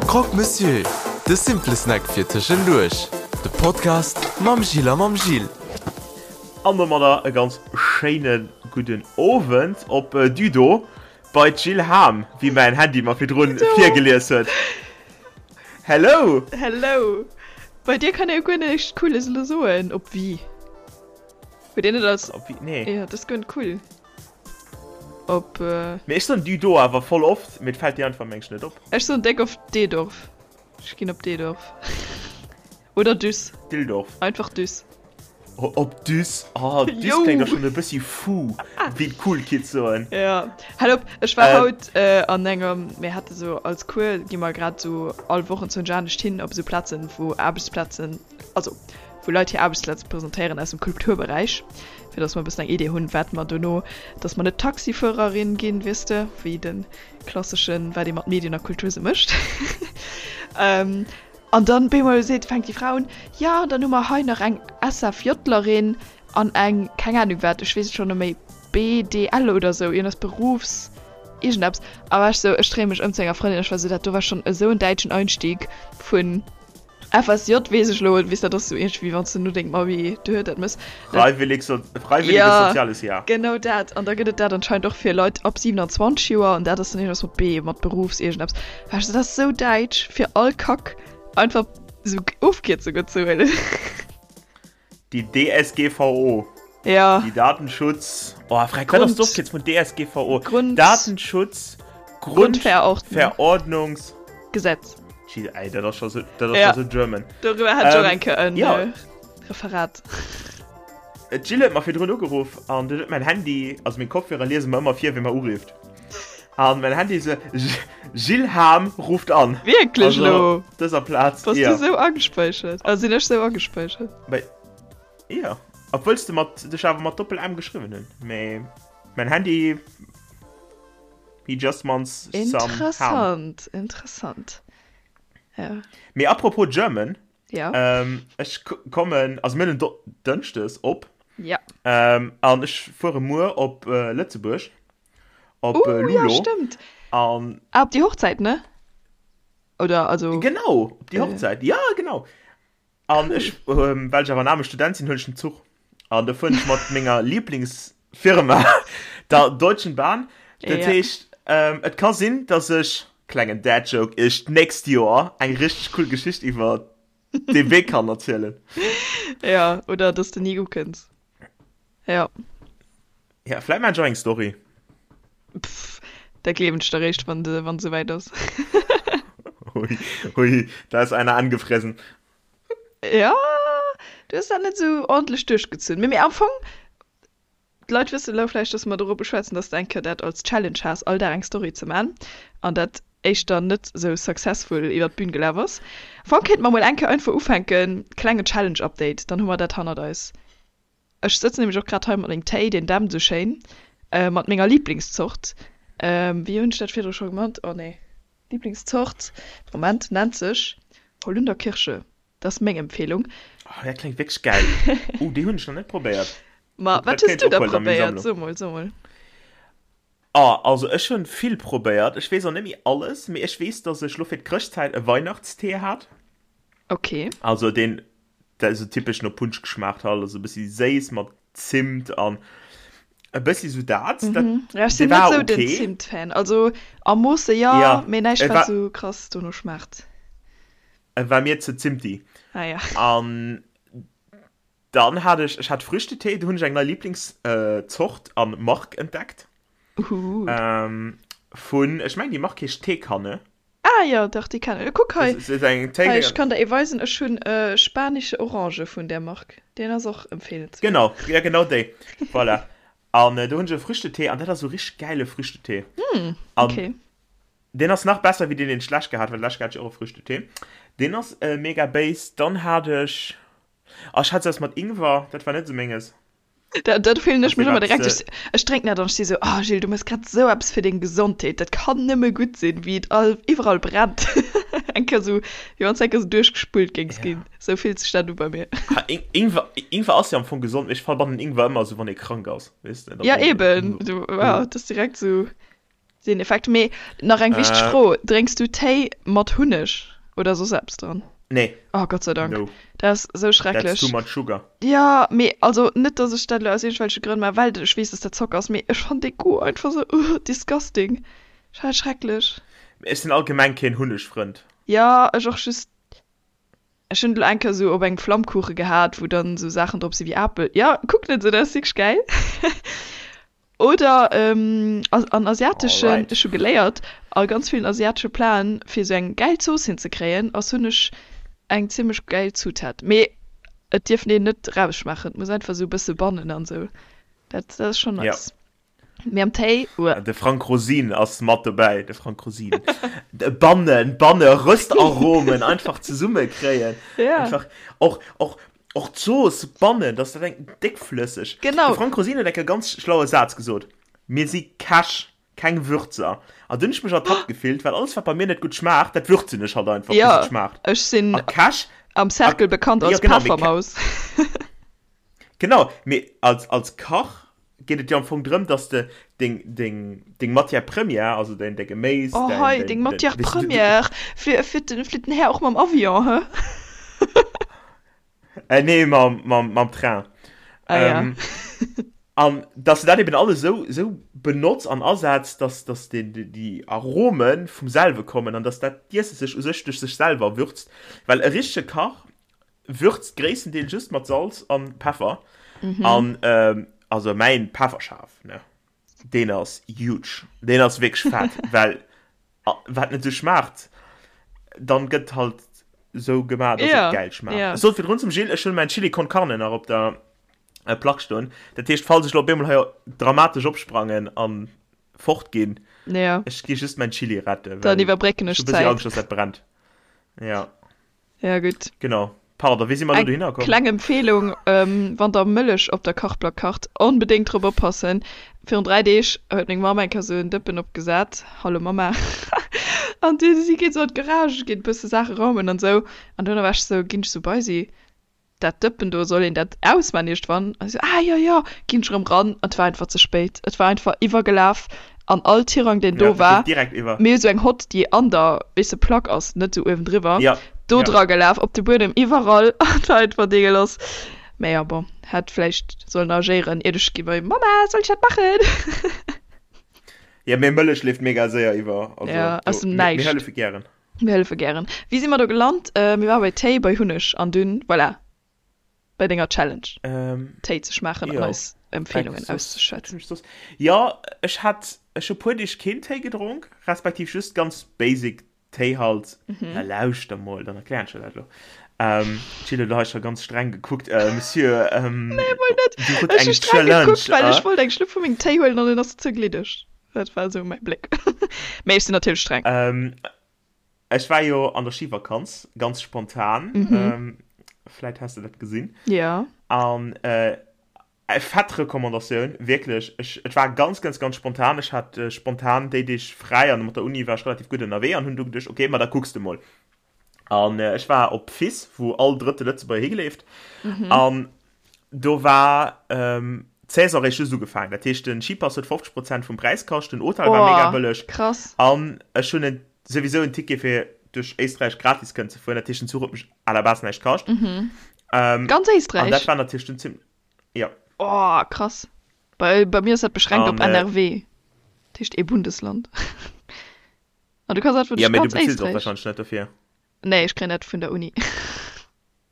Croque Monsieur, de simple Snack fir tëschenduerch. De Podcast mam Gilles a mam Gilles. An domadder e ganz schéine gudden Owend op Düdo bei d'Jill Hahm, wéi mäin Handy mer virdrun virgelies huet. Hello! Hello! Bei dir kann ee jo guer näischt Cooles elo soen, op wie? Huet een net als. Op wie? Nee. Jo, dat ass guer net cool. Op. Mee ech soen Düdo awer voll oft, mee et fält dir einfach meng ech net op. Ech soen déck oft Deedorf. Ech ginn op Deedorf. Oder Düss. Dildorf. Einfach Düss. Op Düss. Oh, Düss kléngt och schonn e bëssi fou, wéi d'cool Kids soen. Ja, hal op, ech war haut an engem, mir hate sou als Cours, gi mer grad sou all Woch enzwousch anescht hin op esou Plazen, wou Aarbechtsplazen, also wou Leit hir Aarbechtsplaze presentéieren aus dem Kulturberäich, fir dass mer e bëssen eng Idee hunn, wat mer dono, dass mer net Taxifuererin ginn, weess de, wéi de klasseschen, wat ee mat Medien a Kultur sou mécht. An dann bemol seet, fänkt déi Fra un, jo, an dann hu mer hei nach eng SFJlerin an eng, keng Ahnung wat, ech weess et schonn net méi, BDL oder sou, iergendes Berufs iergendeppes. A war ech sou, ech dréie mech ëm zu enger Frëndin, ech war sou, dat do war schonn esou en däitschen Einstieg vun FSJ weess ech elo, weess dat ass sou iergendwéi wann s de no dengem Abi duer dat mëss. Freiwillig so, freiwilliges Ja, soziales Jahr. genau dat. An da gëtt et dat anscheinend och fir Leit ab 27 Joer an dat ass dann iergendeppes mat B, mat Berufs iergendeppes. War ech sou, dat ass sou däitsch fir all Kack einfach sou Ofkierzungen ze huelen. Déi DSGVO. Ja. Déi Datenschutz. Oh, frag, wat ass Grund. d'Ofkierz vun DSGVO? Grund. Datenschutz. Grundverordnung. Grundverordnungs. Gesetz. Jeez, ey, dat ass scho sou, dat ass Ja. scho sou German. Doriwwer hat ech och Ähm, eng Kéier en ja. äh, Referat. D'Jill huet mer virdrun ugeruff an dunn huet mäin Handy, also meng Kopfhörer liese mer ëmmer vir, wie mer urifft. An mäin Handy sou, Gilles Hahm ruft an. Wierklech Also, elo? op dëser Plaz, Bass jo. du sou agespäichert? Also sinn ech sou agespäichert? Bei, jo. Obwuel s de mat, dech awer mat Doppel-M geschriwwen hunn. Mee mäin Handy, he just wants some Ham. Interessant, interessant. Ja. Mee apropos German, Ja. Ähm, ech kommen, also mir hunn en Dënschdes op. Ja. Ähm, an ech fuere muer op äh, Lëtzebuerg. Op Uh, äh, ja, Lulo. stimmt. An Ah, op déi Hochzäit, ne? Oder, also. genau, op déi Äh. Hochzäit. Ja, genau. An Cool. ech, ähm, well ech awer en aarme Student sinn, huelen ech den Zuch. An da fueren ech mat menger Lieblingsfirma, der Deutschen Bahn. Dat Ja. heescht, ähm, et ka sinn, dass ech, klengen Dad Joke, iech d'nächst Joer eng richteg cool Geschicht iwwer dee Wee kann erzielen. Ja, oder dass de ni ukënns. Ja. Ja, vläit maan ech och eng Story. Pff, dat gleewen ech der réischt, wann de, wann et souwäit ass. Hui, hui, da ist einer angefressen. Ja, du hues dat net esou ordentlech duerchgezunn. Mee, mee am Fong, d'Leit wëssen elo vläicht, dass mer dorobber schwätzen, dass de eng Kéier dat als Challenge has, all Dag eng Story ze man, an dat éischter net esou successful iwwer d'Bün gelaf ass. Am Fong kéinte mer mol eng Kéier einfach ufänken, klengen Challenge-Update, dann hu mer dat hannert eis. Ech sëtzen nämlech och grad hei mat mengem Téi, deen dämpt esou schéin, mat menger Lieblingszort, wéi hunn ech dat virdru scho gemannt, oh nee, Lieblingszort, Moment, nennt sech Holunderkirsche, dat ass meng Empfehlung. Oh, dat kléngt wierklech gäil. Oh, déi hunn ech nach net probéiert. Ma Dat wat hues kéint du da ophuelen a meng probéiert? Sammlung. So mol, so mol. Ah, also ech hunn vill probéiert. Ech weess och net méi alles, mee ech weess, dass ech lo fir d'Chrëschtzäit e Weihnachtstee hat. Okay. Also deen, dat esou typesch no Punsch geschmaacht hat, also e bëssi séiss mat Zimt an e bëssi sou dat. Dat, Mhm. Ja, ech dee sinn net war sou den okay. Zimt-Fan. Also am Moosse jo, Ja, mee näischt e wat war, sou krass dono schmaacht. e war mir ze zimti. Ah ja. An dann hat ech, ech hat Früchtetee, do hunn ech eng nei Lieblingszort an Mark entdeckt. Uhuhu. Ähm, vun, ech mengen déi Mark heescht Teekanne. Ah jo, dach déi kennen ech. Kuck hei, Das ist eng hei ech Téi. kann der ee weisen, ech hunn e spanische Orange vun där Mark, deen ass och empfeelenswäert. Genau, ja genau déi. Voilà. An do hunn ech e Früchtetee an dat ass esou richteg gäile Früchtetee. Hm, An okay. deen ass nach besser wéi deen, deen ech d'lescht gehat, well d'lescht hat ech och e Früchtetee. Deen ass mega béis. Dann hat ech, ah ech hat sou eppes mat Ingwer, dat war net esou menges. Dat, dat fillen ech Also mech ëmmer wat direkt. se. Ech, ech drénken dat an ech si sou, oh Gilles, du méchs grad esou eppes fir deng Gesondheet, dat kann nëmme gutt sinn, wéi et all, iwwerall brennt. Eng Kéier sou, wéi wann s eng Kéier sou duerchgespullt géings Ja. ginn. Sou fillt sech dat u bei mir. Ha, In, Ingwer, Ingwer ass jo am Fong gesond, mee ech verbannen Ingwer ëmmer sou, wann ee krank ass, weess de, da Ja, brauch een eben. Ingwer. Du, ja, dat ass direkt sou. Deen Effekt. Mee nach eng wichteg Äh. Fro, Drénks du Téi mat Hunneg oder soss eppes dran? Nee. Oh, Gott sei Dank. No. Dat ass esou That's schrecklech. too much sugar. Jo, mee also net, dass ech dat elo aus iergendwelche Grënn maachen, well ech weess, dass dat Zocker ass, mee ech fannen dee Goût einfach esou, ugh, disgusting. Ech fannen dat schrecklech. Ech sinn allgemeng keen Hunnegfrënd. Jo, ech och, just Ech hunn et lo eng Kéier sou op engem Flammkuche gehat, wou dann sou Saachen drop si wéi Apel. Jo, kuck net sou, dat ass wierklech gäil. Oder an asiateschen, Alright. ech hu geléiert, a ganz villen asiatesche Platen, fir sou eng gäil Zooss hinzekréien, ass Hunneg eng zimmlech gäil Zutat. Mee et dierf een net rausschmaachen, et muss einfach sou e bësse bannen an sou. Dat, dat ass schonn Ja. nice. Mee am Téi, uah. De Frank Rosin ass mat dobäi, de Frank Rosin. Bannen, Banne, Röstaromen einfach zesumme kréien. Ja. Einfach och, och, och d'Zooss bannen, dass dat eng déckflësseg. Genau. De Frank Rosin huet eng Kéier ganz schlaue Saz gesot, Mir si Käch, keng Würzer. An dunn hunn ech mech ertappt gefillt, well alles wat bei mir net gutt schmaacht, dat würzen ech halt einfach, bis Ja, et schmaacht. ech sinn A Käch, am a, Cercle bekannt jo als genau, mee Kä, Peffermaus. genau, mee als, als Kach geet et jo am Fong drëm, dass de deng, deng, deng Matière première, also däin, däi Geméis, Oh däin, hei, däin, deng däin, Matière weess de, du, du, première, flitt, flitt den, flitt den Här och mam Avion, hä? äh, nee, mam, mam, mam Train. Ah ja. Ähm, an dass de dat eben alles esou, esou benotz an asetz, dass, dass den, déi, déi Arome vum selwe kommen an dass dat d'Iesse sech u sech duerch sech selwer würzt. Well e richtege Kach würzt gréisstendeels just mat Salz an Peffer. Mhm. An ähm, also mäin Pefferschaf, ne, deen ass huge. Deen ass wierklech fett, well wat net sou schmaacht, dann gëtt halt sou gemaach, dass Ja, et gäil schmaacht. ja. Ech sot virdrun zum Gilles, ech hunn mäin Chili con Carne nach op der äh, Plack stoen. Dat heescht, falls ech lo op eemol hei dramatesch opsprangen an fort ginn, Ja. ech gi just mäin Chili retten, Dann well iwwerbrécken ech ech hu bëssi d'Zäit. Angscht, dass dat brennt. Ja. Ja, gutt. Genau. Pardon, wéi si mer elo Eng dohinner komm? kleng Empfehlung, wann der Mëllech op der Kachplack kacht, onbedéngt drop oppassen. Virun 3 Deeg huet meng Mamm eng Kéier sou en Dëppen opgesat, hallo Mamma, an du si geet sou an d'Garage, geet e bësse Saache raumen an sou, an duerno war ech sou, ginn ech sou bei si, dat Dëppen do, soll een dat ausmaan iergendwann? An si sou, ah jo jo, ginn ech erëm ran, an et war einfach ze spéit, et war einfach iwwergelaf an all Tirang deen Ja, do dat geet war, direkt iwwer. mir hu sou eng Hott déi an der, weess de, Plack ass, net sou uewendriwwer, Ja, do ja. dra gelaf, op de Buedem, iwwerall, an et war einfach deegelass. Mä jo, bon, hätt vläicht sollen agéieren, iert ech gi bei Mama, soll ech dat maachen? Ja, mee Mëllech leeft mega séier iwwer, also Ja, aus do, dem mir, mir Näischt. hëllefe gären. Mir hëllefe gären. Wéi si mer do gelant? Mir ware bei Téi, bei Hunneg an dunn, voilà, bei denger Challenge, Ähm, Téi ze schmaachen an jo. eis Empfeelungen Eng soss, auszeschwätzen. hunn ech soss? Jo, ech hat, ech hu puer Deeg keen Téi gedronk, respektiv just ganz basic Téi halt. Na lauschter mol, dann erklären ech der dat elo. Ähm, d'Jill huet elo hei scho ganz streng gekuckt. Äh, Monsieur, ähm, Nee, mol net. du hutt Ech hu eng streng Challenge, gekuckt, well ech äh? wollt eng Schlupp vu mengem Téi huelen an en ass ze gliddeg. Dat war esou mäi Bléck. Mee ech sinn natierlech streng. Ähm, ech war jo an der Schivakanz, ganz spontan. Mhm. Ähm, vläit has de dat gesinn. Ja. An äh, fett Recommandatioun, wierklech. Ech, et war ganz, ganz, ganz spontan. Ech hat äh, spontan déi Deeg fräi an mat der Uni war ech relativ gutt ënnerwee an hunn du geduecht, okay, ma da kucks de mol. An äh, ech war op Fiss, wou all drëtte Lëtzebuerger higeleeft. Mhm. An do war ähm, d'Saison réischt just ugefaangen. Dat heescht, den Skipass huet 50 Prozent vum Präis kascht, den Hotel war mega Oh, bëlleg. krass. An ech hunn en, souwisou en Ticket fir duerch Éisträich gratis kënnen ze fueren. Dat heescht, den Zuch huet mech à la base näischt kascht. Mhm. Ähm, Ganz an dat Éisträich? war natierlech dunn zim ja. Oh, krass. Bei, bei mir ass dat beschränkt An op äh, NRW. Dat heescht ee Bundesland. An du kanns einfach ja, duerch mee du ganz bezills och Éisträich. wahrscheinlech net dofir. Nee, ech kréien dat vun der Uni.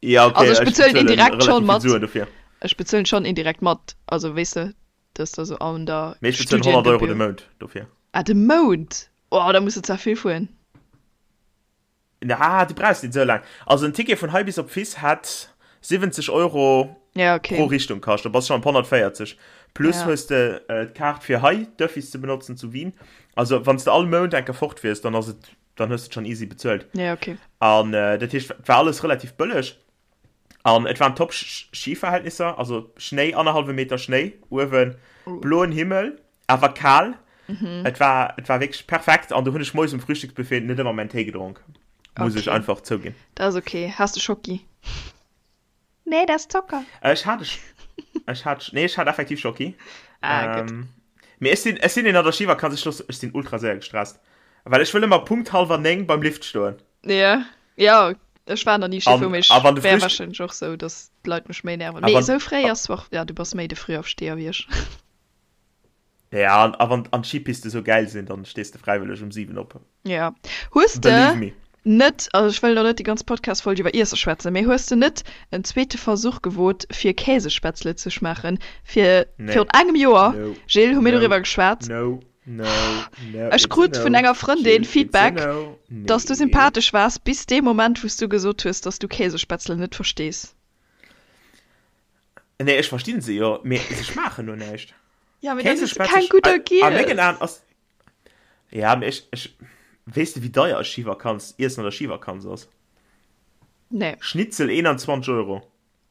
Ja, okay, Also ech ech bezuelen bezuelen indirekt schon relativ vill mat. Suen dofir. Ech bezuelen schon indirekt mat. Also weess de, dat ass da sou an der Mee ech bezuelen 100 Euro de Studiengebühr. Mount dofir. Ah, de Mount? Oh, da muss de zwar vill fueren. Ah, du brauchs net esou laang. Also en Ticket vun hei bis op Fiss hätt 70 Euro Ja, pro okay. Richtung kascht. Da bass du schon op 140. Plus Ja. hues de d'Kaart fir hei d'Öffis ze benotzen zu Wien. Also wann s de all Mount eng Kéier fort wiers, dann ass et, dann hues de et schon easy bezuelt. Ja, okay. An dat heescht, et war alles relativ bëlleg. An et waren top Skiverhältnisser, also Schnéi, annerhallwe Meter Schnéi uewen, bloen Himmel, awer kal. Et war, et war wierklech perfekt an do hunn ech moies um Frühstücksbuffet net ëmmer mäin Téi gedronk, muss ech Okay. einfach zouginn. Dat ass okay. Has de Schocki? Nee, dat ass Zocker. Ech hat, ech hat, nee, ech hat effektiv Schocki. Ah, gutt. Mee ech sinn, ech sinn een an der Schivakanz, ech loosse, ech sinn ultra séier gestresst. Well ech wëll ëmmer Punkt hallwer 9 beim Lift stoen. Ja, ja, ech war nach ni Ski An, fueren, mee ech a wann de wär Frühst, wahrscheinlech och sou, dass d'Leit mech méi nerven. a Mee wann, esou fréi a, ass zwar, ja, du bass méi de Frühaufsteher wéi ech. ja, an, a wann, an d'Skipiste sou gäil sinn, dann stees de fräiwëlleg um 7 op. Ja. Hues de Believe me. net, also ech wëll elo net déi ganz Podcast-Folg iwwer Iesse schwätzen, mee hues de net en zweete Versuch gewot fir Käsespätzle ze schmaachen? Fir Nee. virun engem Joer, No. Gilles, hu mir No. doriwwer geschwat. No. No. No. Ech It's a krut vun no. enger Frëndin Gilles, it's a Feedback, no. dass du Nee. sympathesch waars bis dee Moment, wou s du gesot hues, dass du Käsespätzle net verstees. Nee, ech verstinn se jo, mee se schmaachen no näischt. Ja, mee dann hues du Käsespätzle, keng gudder a mengen giess. Aen ass Ja, mee ech, ech, weess de wéi deier e Schivakanz, Iessen an der Schivakanz ass? Nee. Schnitzel 21 Euro.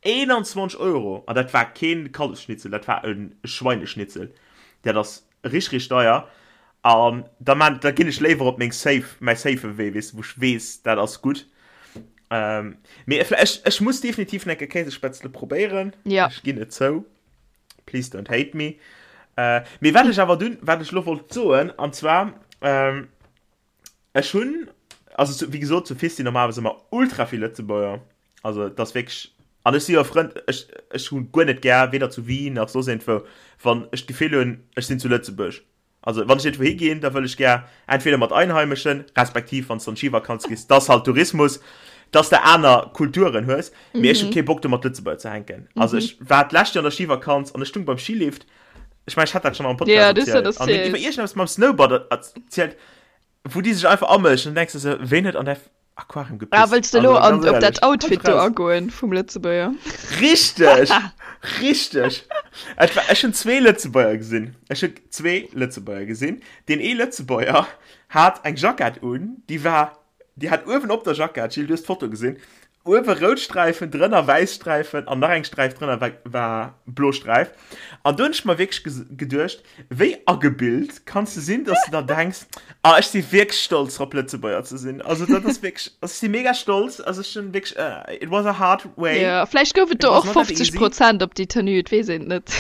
21 Euro! An dat war keen Kallefsschnitzel, dat war e Schweineschnitzel. Dat ass rich, rich deier. An da man, da ginn ech léiwer op meng safe, mäi safe Wee, weess de, wou ech weess, dat ass gutt. Ähm, mee ech, ech muss definitiv nach eng Kéier Käsespätzle probéieren. Ja. Ech ginn et zou. Please don't hate me. Äh, mee wat ech awer dunn, wat ech lo wollt soen, an zwar, ähm, ech hunn, also zu, wéi gesot, zu Fis sinn normalerweis ëmmer ultra vill Lëtzebuerger. Also et ass wierklech, an ech si jo e Frënd, ech, ech hunn guer net gär, weder zu Wien nach soss iergendwou, wann ech d'Gefill hunn, ech sinn zu Lëtzebuerg. Also wann ech iergendwou higinn, da wëll ech gär entweder mat Einheimeschen, respektiv wann s de an d'Schivakanz gees, dass halt Tourismus, dass de aner Kulturen hues, mee ech hu kee Bock do mat Lëtzebuerger ze hänken. Also ech war d'lescht Joer an der Schivakanz an ech stung beim Skilift, ech mengen ech hat dat schonn am Podcast Ja, du hues dat erzielt, an hunn iwwer erzielt. iergendeppes mam Snowboard erzielt, wou déi sech einfach amëschen, an denkst de sou, ween huet an där Aquarium Ah, gepisst? wëlls de elo Also an, ganz op dat éierlech, halt Outfit do raus. agoen vum Lëtzebuerger? Richteg! Richteg! Et war, ech hunn zwee Lëtzebuerger gesinn. Ech hunn zwee Lëtzebuerger gesinn. Deen ee Lëtzebuerger hat eng Jackett un, déi war, déi hat uewen op der Jackett, Gilles, du hues d'Foto gesinn, Uewe rout Sträifen, drënner wäiss Sträifen an nach eng Sträif drënner war, war blo Sträif. An do hunn ech mer wierklech geduecht, wéi agebilt kanns de sinn, dass de der denks, ah ech si wierklech stolz drop Lëtzebuerger ze sinn. Also dat ass wierklech, also ech si mega stolz, also ech hunn wierklech, it was a hard way. Jo, vläicht gouf et It do was och not that 50 easy. Prozent op déi Tenue, et weess een et net,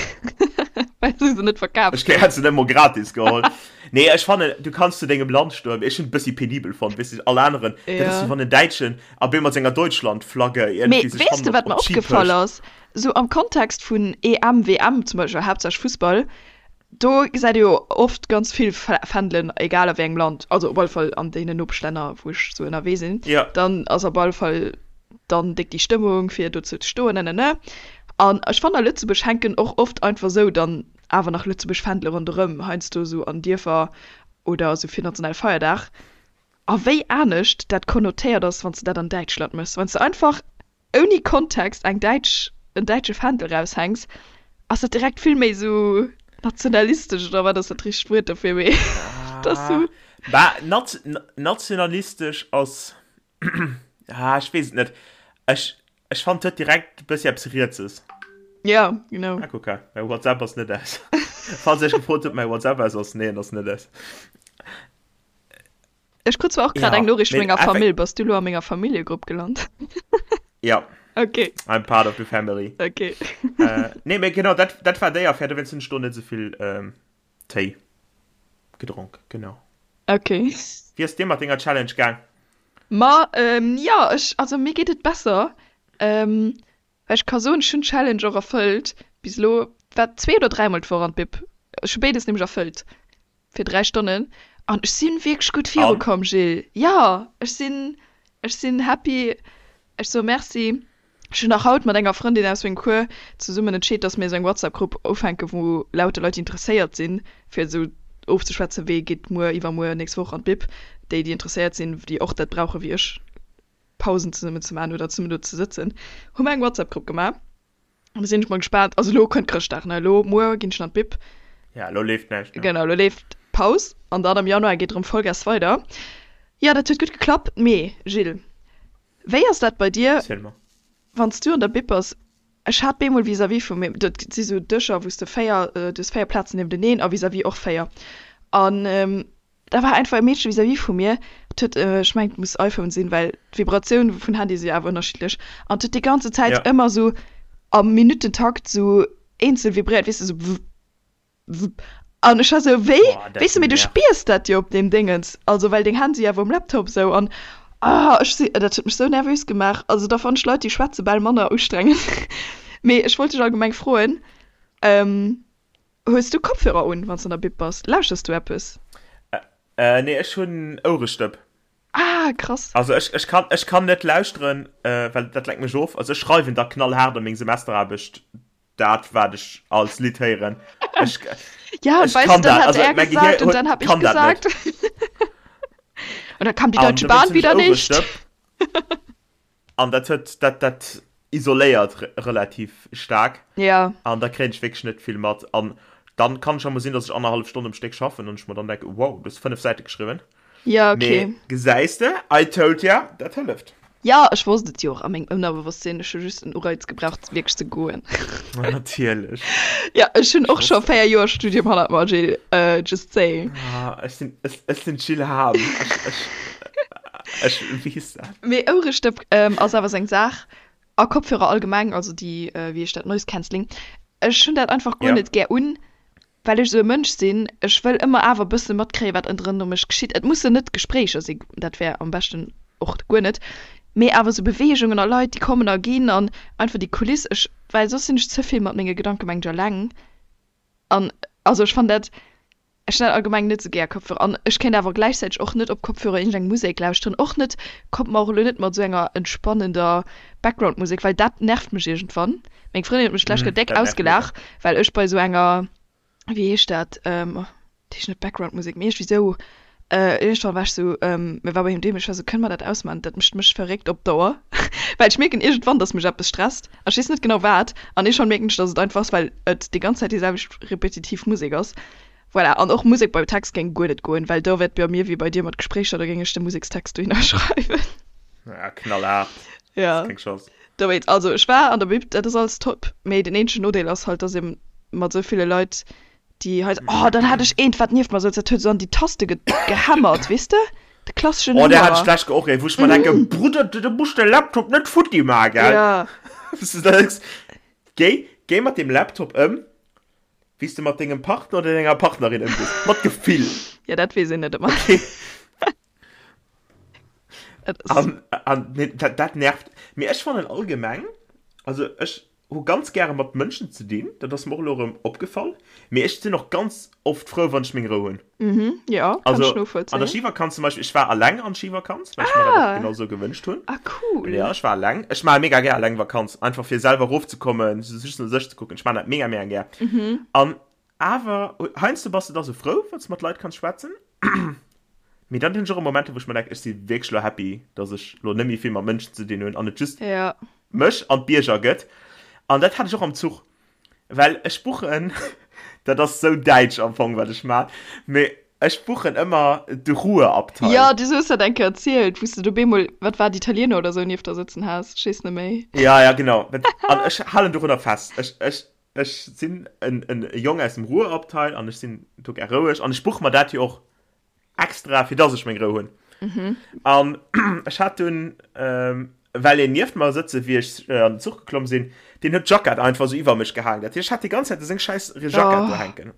well se se net verkaaft Ech hunn. hätt se net emol gratis geholl. Nee, ech fannen, du kanns zu dengem Land stoen, mee ech hunn et bëssi penibel fonnt, weess de, all aneren, dat ass Ja. wéi wann en Däitschen a bee mat senger Deutschland-Flagge Mee iergendwéi sech weess hannen de, op wat mer op d'Ski opgefall pëscht. ass? Sou am Kontext vun EM, WM zum Beispill, haaptsächlech Fussball, do gesäit ee jo oft ganz vill Fändelen, egal a wéi engem Land, also op alle Fall an deenen Nopeschlänner, wou ech sou ënnerwee sinn, Ja. dann ass op alle Fall dann déck déi Stëmmung, fir dozou ze stoen, nenene. An ech fannen, a Lëtzebuerg hänken och oft einfach sou dann awer nach Lëtzebuerg Fändele ronderëm, heiansdo sou an Dierfer oder sou fir Nationalfeierdag. A wéi anescht dat konnotéiert ass, wann s de dat an Däitschland méchs. Wann s de einfach ouni Kontext eng däitsch, en däitsche Fändel raushänks, ass dat direkt vill méi sou nationalistesch, oder wat ass dat richtegt Wuert dofir, mee et ass sou. Bah, nationalistesch ass, ah, ech weess et net. Ech, ech fannen, et huet direkt e bëssi eppes Rietses. Ja, genau. Ah, kuck, mäi WhatsApp ass net aus. Falls Dir iech gefrot hutt, ob mäi WhatsApp aus ass, nee, en ass net aus. Ech krut zwar och grad Ja, eng Noriicht vu mee menger effek- Famill. Bass du lo a menger Familljegrupp gelant? Ja, Okay, I'm part of the family. okay. Äh, nee, mee genau, dat, dat war déi Affär, dowéinst hunn ech do net esou vill ähm, Téi gedronk, genau. Okay. Wéi ass dir mat denger Challenge gaang? Ma, ähm, ja, ech, also mir geet et besser. Ähm, well ech ka soen, ech hunn d'Challenge och erfëllt bis elo. War zwee oder dräimol d'Woch an d'Bib. Ech hu béides nämlech erfëllt. Fir 3 Stonnen an ech sinn wierklech gutt viru komm Gilles. Jo ech sinn ech sinn happy, ech soe Merci. Ech hunn nach haut mat enger Frëndin aus mengem Cours zesummen entscheet, dass mir esou eng WhatsApp Grupp ufänken, wou lauter Leit déi interesséiert sinn fir esou ofzeschwätzen, wee geet muer, iwwermuer, nächst Woch an d'Bib, déi déi interesséiert sinn, déi och dat brauche wéi ech, Pausen zesummen ze maachen oder zesummen do ze sëtzen, hu mer eng WhatsApp Grupp gemaach. An da sinn ech mol gespaant. Also elo kënnt Chrëschtdag, ne? Elo, muer ginn ech an d'Bib. Ja, elo leeft näischt, ne? Genau, elo leeft Paus an dann am Januar geet erëm Vollgas weider. Jo, dat huet gutt geklappt. Mee Gilles, wéi ass dat bei dir, Erziel mer. wann s du an der Bib bass? Ech hat bemol vis-à-vis vu mir, dat si sou Dëscher, wou s de 4, du hues 4 Plazen niewteneen a vis-à-vis och 4. An Da war einfach e Meedche vis-à-vis vu mir, dat huet, ech mengen et muss iPhone sinn, well d'Vibratioun vun Handye si jo awer ënnerschiddlech, an et huet déi ganze Zäit Ja. ëmmer sou am Minuttentakt sou eenzel vibréiert, weess de, sou wupp, wupp. An ech war sou, wéi? Weess de, mee du spiers dat jo op deem Déngens, also well deng Hänn si awer um Laptop sou an ah ech si, dat huet mech sou nervös gemaach. Also da fannen ech Leit déi schwätze bal manner ustrengend. Mee ech wollt dech allgemeng froen, hues du Kopfhörer un wann s de an der Bib bass? Lauschters du eppes? Nee, ech hunn Ourestëpp. Ah krass. Also ech, ech kann, ech kann net lauschteren, well dat lenkt mech of. Also ech schreiwen da knallhaart a meng Semesteraarbecht dat wat ech als Lidd héieren. Ech, ja, und ech weißt kann du, dann dat. hat Also er mein Gehir gesagt und huet, dann hab ich kann dat net. gesagt. Und dann kam die An Deutsche dowéinst Bahn hunn ech wieder nicht. Ouerestëpp. An dat huet, dat, dat isoléiert re relativ staark. Ja. An da kréien ech wierklech net vill mat. An dann kann ech emol sinn, dass ech annerhallef Stonn um Stéck schaffen an ech mer dann denken, wow, du hues 5 Säite geschriwwen. Ja, okay. Mee gesäis de, I told ya, dat hëlleft. Ja, ech wosst et jo och a mengem Ënnerbewosstsinn. Ech hu just en Ureiz gebraucht, wierklech ze goen. Natierlech. Ja, ech hunn Ech och scho wosst et. 4 Joer Studium hannert mer, Jill. Just saying. Ah, ech sinn, ech, ech sinn d'Jill Hahm. Ech, ech, ech weess dat. Mee Ouerestëpp ass awer sou eng Saach. A Kopfhörer allgemeng, also déi, wéi heescht dat, Noise Cancelling. Ech hunn dat einfach guer Ja. net gär un. Well ech esou e Mënsch sinn, ech wëll ëmmer awer e bësse matkréien, wat ënnerëm mech geschitt. Et mussen net Gespréicher sinn, dat wär am beschten och guer net, mee awer esou Beweegungen a Leit, déi kommen a ginn an einfach déi Kuliss. Ech, well soss sinn ech ze vill mat menge Gedanke mengt ech eleng an also ech fannen dat, ech hunn dat allgemeng net esou gär Kopfhörer an ech kéint awer gläichzäiteg och net op Kopfhörer iergendeng Musek lauschteren, och net, kommt mer och elo net mat esou enger entspannender Backgroundmusek, well dat nervt mech iergendwann. Meng Frëndin huet mech d'lescht Kéier déck Dat nervt mega. ausgelaach, well ech bei esou enger, wéi heescht dat, dat heescht net Backgroundmusek, mee iergendwéi esou, iergendwann war ech esou, mir war bei him doheem, ech war esou, kënne mer dat ausmaachen, dat mécht mech verréckt op Dauer, well ech mierken iergendwann, dass mech eppes stresst a ech weess net genau wat an iergendwann mierken ech, dass et einfach ass, well et déi ganz Zäit déi selwecht repetitiv Musek ass. Voilà, an och Musek beim Text géing guer net goen, well do wär et bei mir wéi bei dir mat Gespréicher, do géing ech de Musekstext dohinner schreiwen. Ja, knallhart. Ja. Das ist keng Chance. Dowéinst, also ech war an der Bib, dat ass alles top, mee den eenzegen Nodeel ass halt, dass ee mat esou ville Leit, déi hei, oh dann hat ech eent wat nieft mer souz, dat huet esou an déi Taste ge gehämmert, weess de, de klasseschen Oh, där hat ech Hämmerer. d'lescht Kéier och een, wou ech mer denken, Brudder, du muss de Laptop net futti maachen, gell? Ja. Wou s du denkst, géi, géi mat deem Laptop ëm, wéi s de mat dengem Partner oder denger Partnerin ëmgees. Mat Gefill. Ja, dat weess een net ëmmer. Okay. Et ass. An, an nee, dat, dat nervt. Mee ech fannen allgemeng, also ech hu ganz gäre mat Mënschen ze dinn, dat ass mer och elo erëm opgefall, mee ech sinn och ganz oft frou, wann ech meng Rou hunn. Mhm, ja, kann ech Also an der novollzéien. Skivakanz zum Beispill, ech war alleng an Skivakanz, well ech mer dat och Ah! genau sou gewënscht hunn. Ah, cool. Ja, ech war alleng. Ech maache mega gär alleng Vakanz, einfach fir selwer erofzekommen, just no sech ze kucken. Ech maachen dat mega, mega gär. Mhm. An awer, heiansdo bass de da sou frou, wann s de mat Leit kanns schwätzen. Mee dann hunn ech och Momenter, wou ech mer denken, ech si wierklech lo happy, dass ech lo net méi vill mat Mënschen ze dinn hunn an et just Ja. mech an d'Bierger gëtt. An dat hat ech och am Zuch, well ech buchen, dat ass sou däitsch am Fong, wat ech man, mee ech buchen ëmmer de Ruheabteil. Ja, du hues dat eng Kéier erzielt, wou s de do bemol, wat war, d'Italiener oder sou nieft der sëtzen has, ech weess net méi. Ja, ja, genau. An ech halen dorunner fest. Ech, ech, Ech sinn en Jong aus dem Ruhrabteil an ech sinn do gär roueg an ech buche mer dat jo och extra, fir dass ech meng Rou hunn. An ech hat dunn, well een nieft mer sëtze wéi ech an den Zuch geklomm sinn, deen huet d'Jackett einfach esou iwwer mech gehaangen. Dat heescht, ech hat déi ganz Zäit esou seng schäiss Jackett do hänken.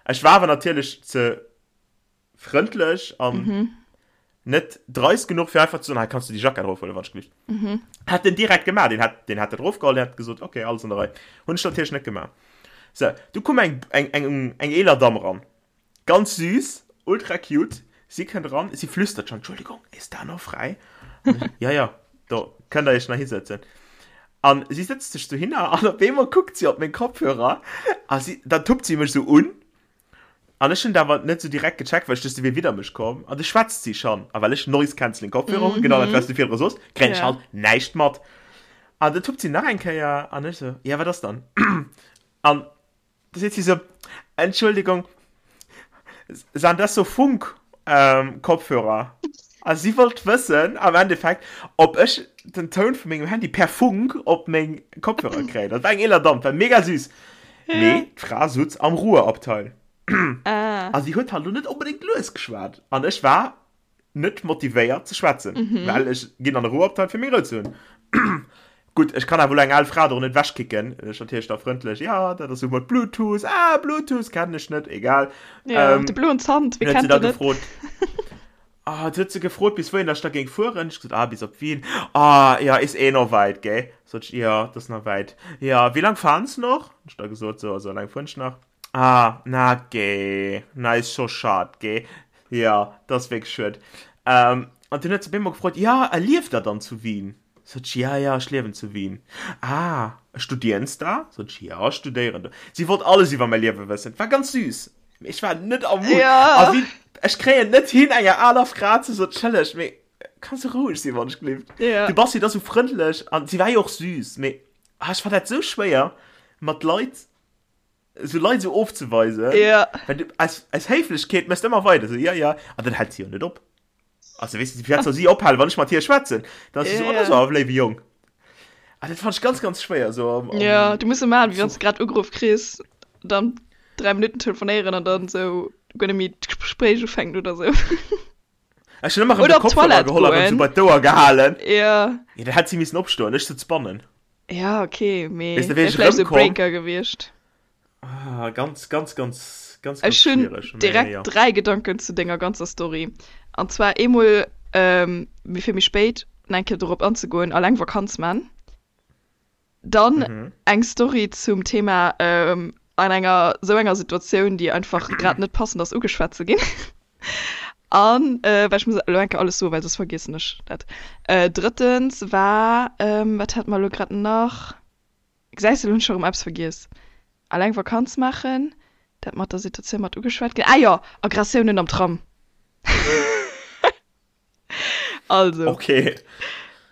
Ech war awer natierlech ze frëndlech an mhm. net dreist genuch fir einfach zu soen, hey, kannst du die Jacke draufholen, wann ich gelift. Mhm. Hat den direkt gemacht, den hat den hat der draufgeholt, den hat gesagt, okay, alles an der Reihe. Hun ich natürlich net gemacht. So, du komm eng eng eng eng eeler Damm ran. Ganz süß, ultra cute. Sie kënnt ran, sie flüstert schon, Entschuldigung, ist da noch frei? ja, ja, do könnt ihr euch nach hinsetzen. An sie setzt sich so hin an op einmal guckt sie op meng Kopfhörer a sie, dann tuppt sie mech so un An ech hunn et awer net sou direkt gecheckt, well ech duecht, si wier widder mech komm. An du schwätzt si schonn. A well ech Noise Cancelling Kopfhörer hunn, genau dat, wat s du virdru sos, kréien ech halt näischt mat. An du tuppt si nach eng Kéier an ech sou, ja, wat ass dann? An du seet si sou, Entschuldigung, san das so Funk Kopfhörer? A si wollt wëssen am Endeffekt, ob ech den Toun vu mengem Handy per Funk op meng Kopfhörer kréien. Dat war eng eeler Damm, war mega süß. Mee d'Fra sutz am Ruheabteil. Ah. A si huet halt lo net onbedéngt lues geschwat. An ech war net motivéiert ze schwätzen, well ech ginn an de Ruheabteil fir meng Rou ze hunn. Gutt, ech kann awer elo eng al Fra do net ewechkicken. Ech natierlech da frëndlech, ja, dat ass esou mat Bluetooth, ah, Bluetooth kennen ech net, egal. Ja, ähm, de bloen Zant, wie kennt den net? Gefrot, ah, du huet se gefrot, bis wouhin ech da géing fueren. Ech gesot, ah, bis op Wien. Ah, ja, is eh noch weit, gell? Sot ech, ja, das ist noch weit. Ja, wie lang fahren Sie noch? Ech da gesot, so, so lang fuhren ech nach. Ah, na geh, na is scho schad, geh. Ja, dat ass wierklech schued. Ähm, an dunn huet se op eemol gefrot, ja, a lieft der dann zu Wien? Sot ech, ja, ja, ech liewen zu Wien. Ah, studieren s da? Sot ech, ja, ech studéieren do. Si wollt alles iwwer mäi Liewe wëssen. Et war ganz süß. Mee ech war net am Mood. Ja. A wéi, ech kréien net hin, enger aler Fra ze soen, Entschëlleg, mee kanns du roueg sinn, wann ech gelift? Ja. Du bass jo da sou frëndlech an si war jo och süß, mee ah, ech fand dat sou schwéier, mat Leit, esou Leit esou ofzeweisen. Ja. Well du, aus, aus Héiflechkeet méchs de ëmmer weider, esou, ja, ja, an dann hält si jo net op. Also, weess du, firwat soll si ophalen, wann ech mat hir schwätzen? Dann ass si esou, oh, dat ass awer e léiwe Jong. Ah, dat fand ech ganz, ganz schwéier, esou am, am Ja, du muss e maachen, wéi wann s Zuch. de grad ugeruff kriss, dann 3 Minutten telefonéieren an dann esou guer net méi d'Gespréich ufänken oder esou. Ech hunn ëmmer erëm Oder de op Kopfhörer d'Toilette geholl a erëm esou goen. bei d'Ouer gehalen. Ja. Ja, dann hätt si missen opstoen, ech sutz bannen. Ja, okay, mee Weess de, wéi wär ech vläicht esou e erëmkomm. Breaker gewiescht. Ah, ganz, ganz, ganz, ganz, ganz Ech hunn schwiereg, mee direkt jo. 3 Gedanken zu denger ganzer Story. An zwar eemol, mee fir méi spéit nach eng Kéier dorop anzegoen, alleng Vakanz man. Dann eng Story zum Thema an enger sou enger Situatioun, déi einfach grad net passend ass, ugeschwat ze ginn. An, well ech muss elo eng Kéier alles soen, well soss vergiessen ech dat. Drëttens war, wat hate mer elo grad nach? Gesäis de, elo hunn ech scho rëm eppes vergiess. Alleng Vakanz maachen, dat mat der Situatioun mat ugeschwat ginn. Ah jo, Aggressiounen am Tram. Also. Okay.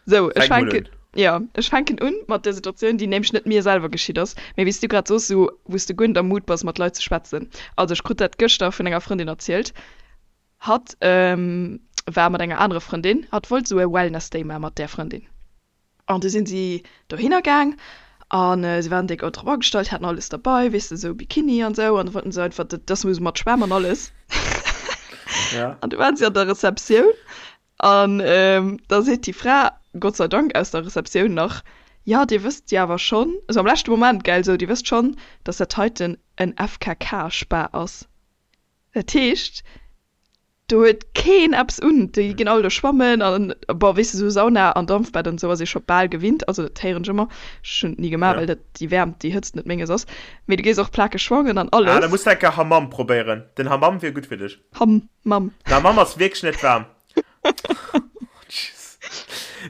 Sou, ech Fänk mol fänken, un. ja, ech fänken un mat der Situatioun, déi nämlech net mir selwer geschitt ass, mee wéi s du grad soos, sou wou s de guer net am Mood bass mat Leit ze schwätzen. Also ech krut dat gëschter vun enger Frëndin erzielt. Hatt war mat enger anerer Frëndin, hatt wollt sou e Wellness Day maache mat där Frëndin. An du sinn si dohinner gaang a si waren déck drop agestallt, haten alles derbei, weess de, sou Bikini an sou, an da wollten se einfach, dat ass esou mat Schwämm an alles. Ja. An du waren si an der Receptioun an da seet déi Fra, Gott sei Dank aus der Receptioun nach, Jo, dir wësst jo awer schonn, esou am leschte Moment, gell, esou, dir wësst schonn, dass dat heiten en FKK-Spa ass. Dat heescht, Do huet keen eppes un, déi ginn all do schwammen an bon, weess de, sou Sauna an Dampfbad an esou ass ee scho bal gewinnt, also dat héieren ech ëmmer, ech hunn et ni gemaach, well dat déi Wäermt, déi Hëtzt net menges ass, mee du gees och plakeg schwammen an Ah, da alles. muss de eng Kéier Hammam probéieren, den Hammam wier gutt fir dech. Hammam. Den Hammam ass wierklech net waarm. Tschüss.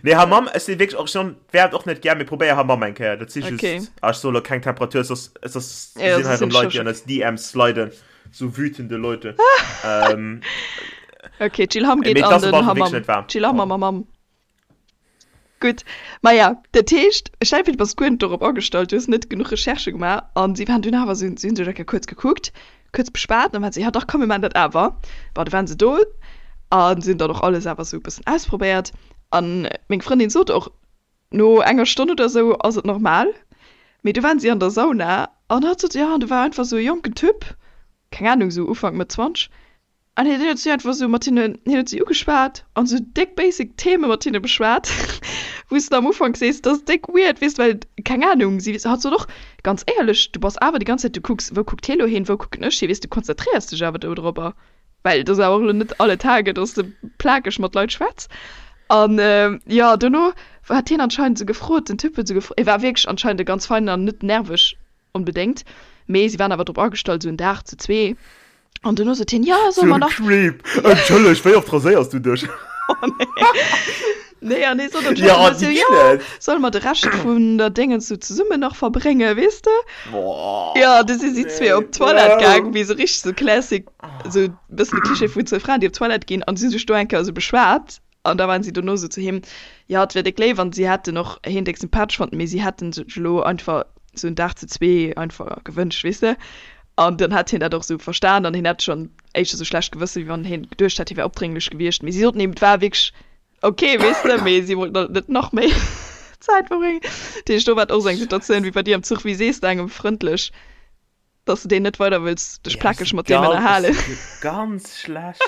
Nee, Hammam, ech si wierklech och schonn, wäert och net gär, mee probéier Hammam eng Kéier, dat si just, Okay. ah, ech soe lo keng Temperatur, soss, soss Ja, sinn soss hei sinn erëm Leit, ech déi an eis DMs sliden. So wütende Leute. ähm, okay, Jill Hamm geht Mee an das den war Hammam. wirklich net warm. Jill Hamm am Hammam. Gutt. Maja, dat heescht, stell dir vir, du bass guer net dorop agestallt, du hues net genuch Recherchë gemaach an si waren dunn awer, si hunn sech eng Kéier kuerz gekuckt, kuerz beschwat an waren se, ja dach komm mir maachen dat awer. Bon, du waren se do a si hunn dann och alles awer esou e bëssen ausprobéiert an meng Frëndin sot och, No enger Stonn oder sou ass et normal, mee du waren si an der Sauna an hatt sot, jo, an do war einfach sou e jonken Typ, keng Ahnung, sou Ufank, Mëtt 20, an hien huet si einfach sou mat hinnen, hien huet si ugeschwat an sou déck basic Theme mat hinne beschwat, wou s de am Ufank sees, dat ass déck weird, weess de, well, keng Ahnung, si, hatt sot och, ganz éierlech, du bass awer déi ganz Zäit, du kucks, wou kuckt hie lo hin, wou kucken ech hin, weess de, du konzentréiers dech awer dodropper. Well et ass awer och elo net alle Tage, dass de plakeg mat Leit schwätz. An jo, dono hat hien anscheinend esou gefrot, den Typ huet esou gefrot, e war wierklech anscheinend e ganz feinen an net nerveg onbedéngt, mee si waren awer drop agestallt, esou en Dag zu zwee. An dono sot hien, jo, solle mer nach. Creep! Entschëlleg, wéi oft raséiers du dech? Oh nee. Nee, an hie sot anscheinend Ja, esou, déi jo, ginn et! solle mer de Rescht vun der Déngens esou zesummen nach verbréngen, weess de? Boah, Ja, du si si zwee nee, op d'Toilette gaang, wow. wéi sou richteg sou classic, sou bëssen de Cliché vun zwou Fraen, déi op d'Toilette ginn an si hu sech do eng Kéier sou beschwat an da waren si dono sou zu him, jo, et wier déck léif an si hätten och hien déck sympathesch fonnt, mee si hätten sech elo einfach sou en Dag zu zwee einfach gewënscht, weess de. An dann hätt hien dat och sou verstan an hien hätt schonn éischter sou schlecht Gewësse wéi wann hien geduecht hätt, hie wär opdrénglech gewiescht, mee si soten him, et war wierklech Ok, weess de, mee si wollten halt net nach méi Zäit verbréngen. Dat heescht, do war et och esou eng Situatioun wéi bei dir am Zuch. Wéi sees de engem frëndlech, dass de deen net weider wëlls dech Ja, plakeg ech mat deem ganz, ech ënnerhalen? si ganz schlecht.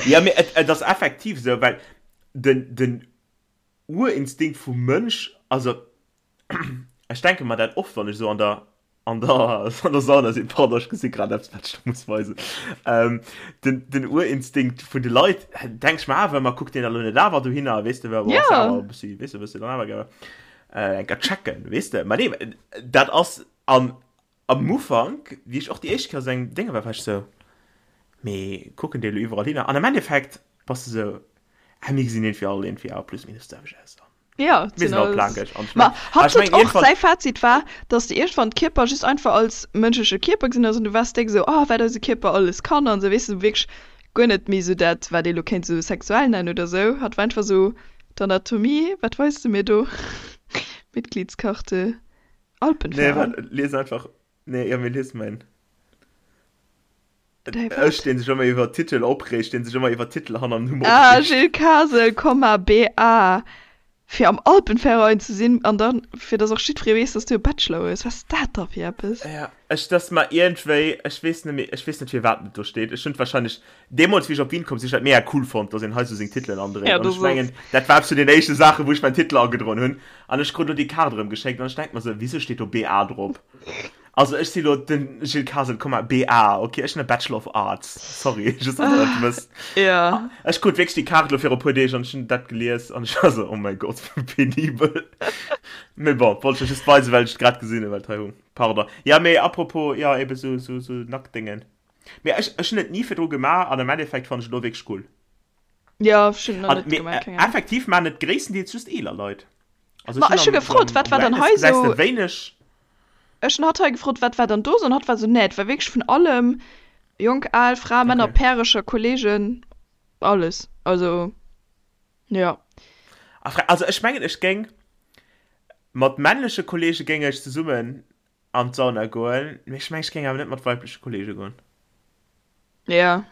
Ja, mee et, et ass effektiv esou, well den, den Urinstinkt vum Mënsch. also ech denke mer dat oft, wann ech esou an der an der an der Sauna sinn, pardon, ech gesi grad eppes, wat ech der muss weisen, ähm, den, den Urinstinkt vun de Leit, denk ech mer awer ëmmer, kuckt deen da lo net awer dohinner, weess de, well ass awer e bëssi, weess de, wëlls de dann awer gär äh, eng Kéier checken, weess de. Mä nee, dat ass an am Ufank, wéi ech och déi éischt Kéier esou eng Dénge war, war ech sou, mee kucken déi elo iwwerall hinner? An am Endeffekt bass de sou, ah, mir gesinn iergendwéi all iergendwéi awer plus minus d'selwecht aus. Ja, Mir sinn all plakeg. An Ma hatt huet och, säi Fazit war, dass de iergendwann d'Kierper just einfach als mënschleche Kierper gesinn hues an du waars déck esou, oh, wat eise Kierper alles kann an esou, weess de, wierklech guer net méi esou dat, wat ee lo kéint esou sexuell nennen oder esou. Hatt war einfach esou, d'Anatomie, wat weis de mir do? Mitgliedskarte, Nee, Alpenverein. waart, lies einfach, nee, jo, mee lies mäin. Däi Ech, wat? deen sech ëmmer iwwer Titel opreegt, deen sech ëmmer iwwer Titel hanner dem Numm Ah, opreegt. Gilles Kasel, Komma, BA, fir am Alpenverein ze sinn an dann, fir dass och jiddweree weess, dass du e Bachelor hues. Wat ass dat da fir eppes? Ja, ech, dass mer iergendwéi, ech weess net méi, ech weess net firwat et do steet. Ech hunn et wahrscheinlech, deemools wéi ech op Wien komm sinn, ech dat mega cool fonnt, dass een hei sou seng Titelen andréit. Ja, An das ech mengen, ass. dat war eppes vun den éischte Saachen, wou ech mäin Titel agedroen hunn. An ech krut elo déi Kaart erëm geschéckt an ech denk mer sou, wisou steet do BA drop? Also ech si lo den Gilles Kasel, Komma, BA, ok, ech hunn e Bachelor of Arts, sorry, just dass der dat wësst. Ja. Ech krut wierklech déi Kaart lo viru puer Deeg an ech hunn dat gelies an ech war sou, oh mäi Gott, wéi penibel. Mee bon, wollt ech lech just weisen, well ech et grad gesinn hunn, well et hei hung. Pardon. Ja, mee apropos, jo, ebe sou, sou, sou Nacktdéngen. Mee ech, ech hunn et ni virdru gemaach an am Endeffekt fannen ech et lo wierklech cool. Ja, ech hunn et nach An, net mee gemaach, keng Ahnung. effektiv maachen et gréisstendeels just eeler Leit. Also Ma ech ech hu hunn am, gefrot, am, wat am war dann Wellness hei gesäis de sou wéineg. Ech hunn hatt hei gefrot, wat war dann do sou, an hatt war sou, nee, et war wierklech vun allem, jonk, al, Fra, Männer, Okay. Pärecher, Kollegen, alles. Also, jo. A Fra, also ech mengen, ech géing mat männleche Kollege géing ech zesummen an d'Sauna goen, mee ech mengen, ech géing awer net mat weibleche Kollege goen. Ja.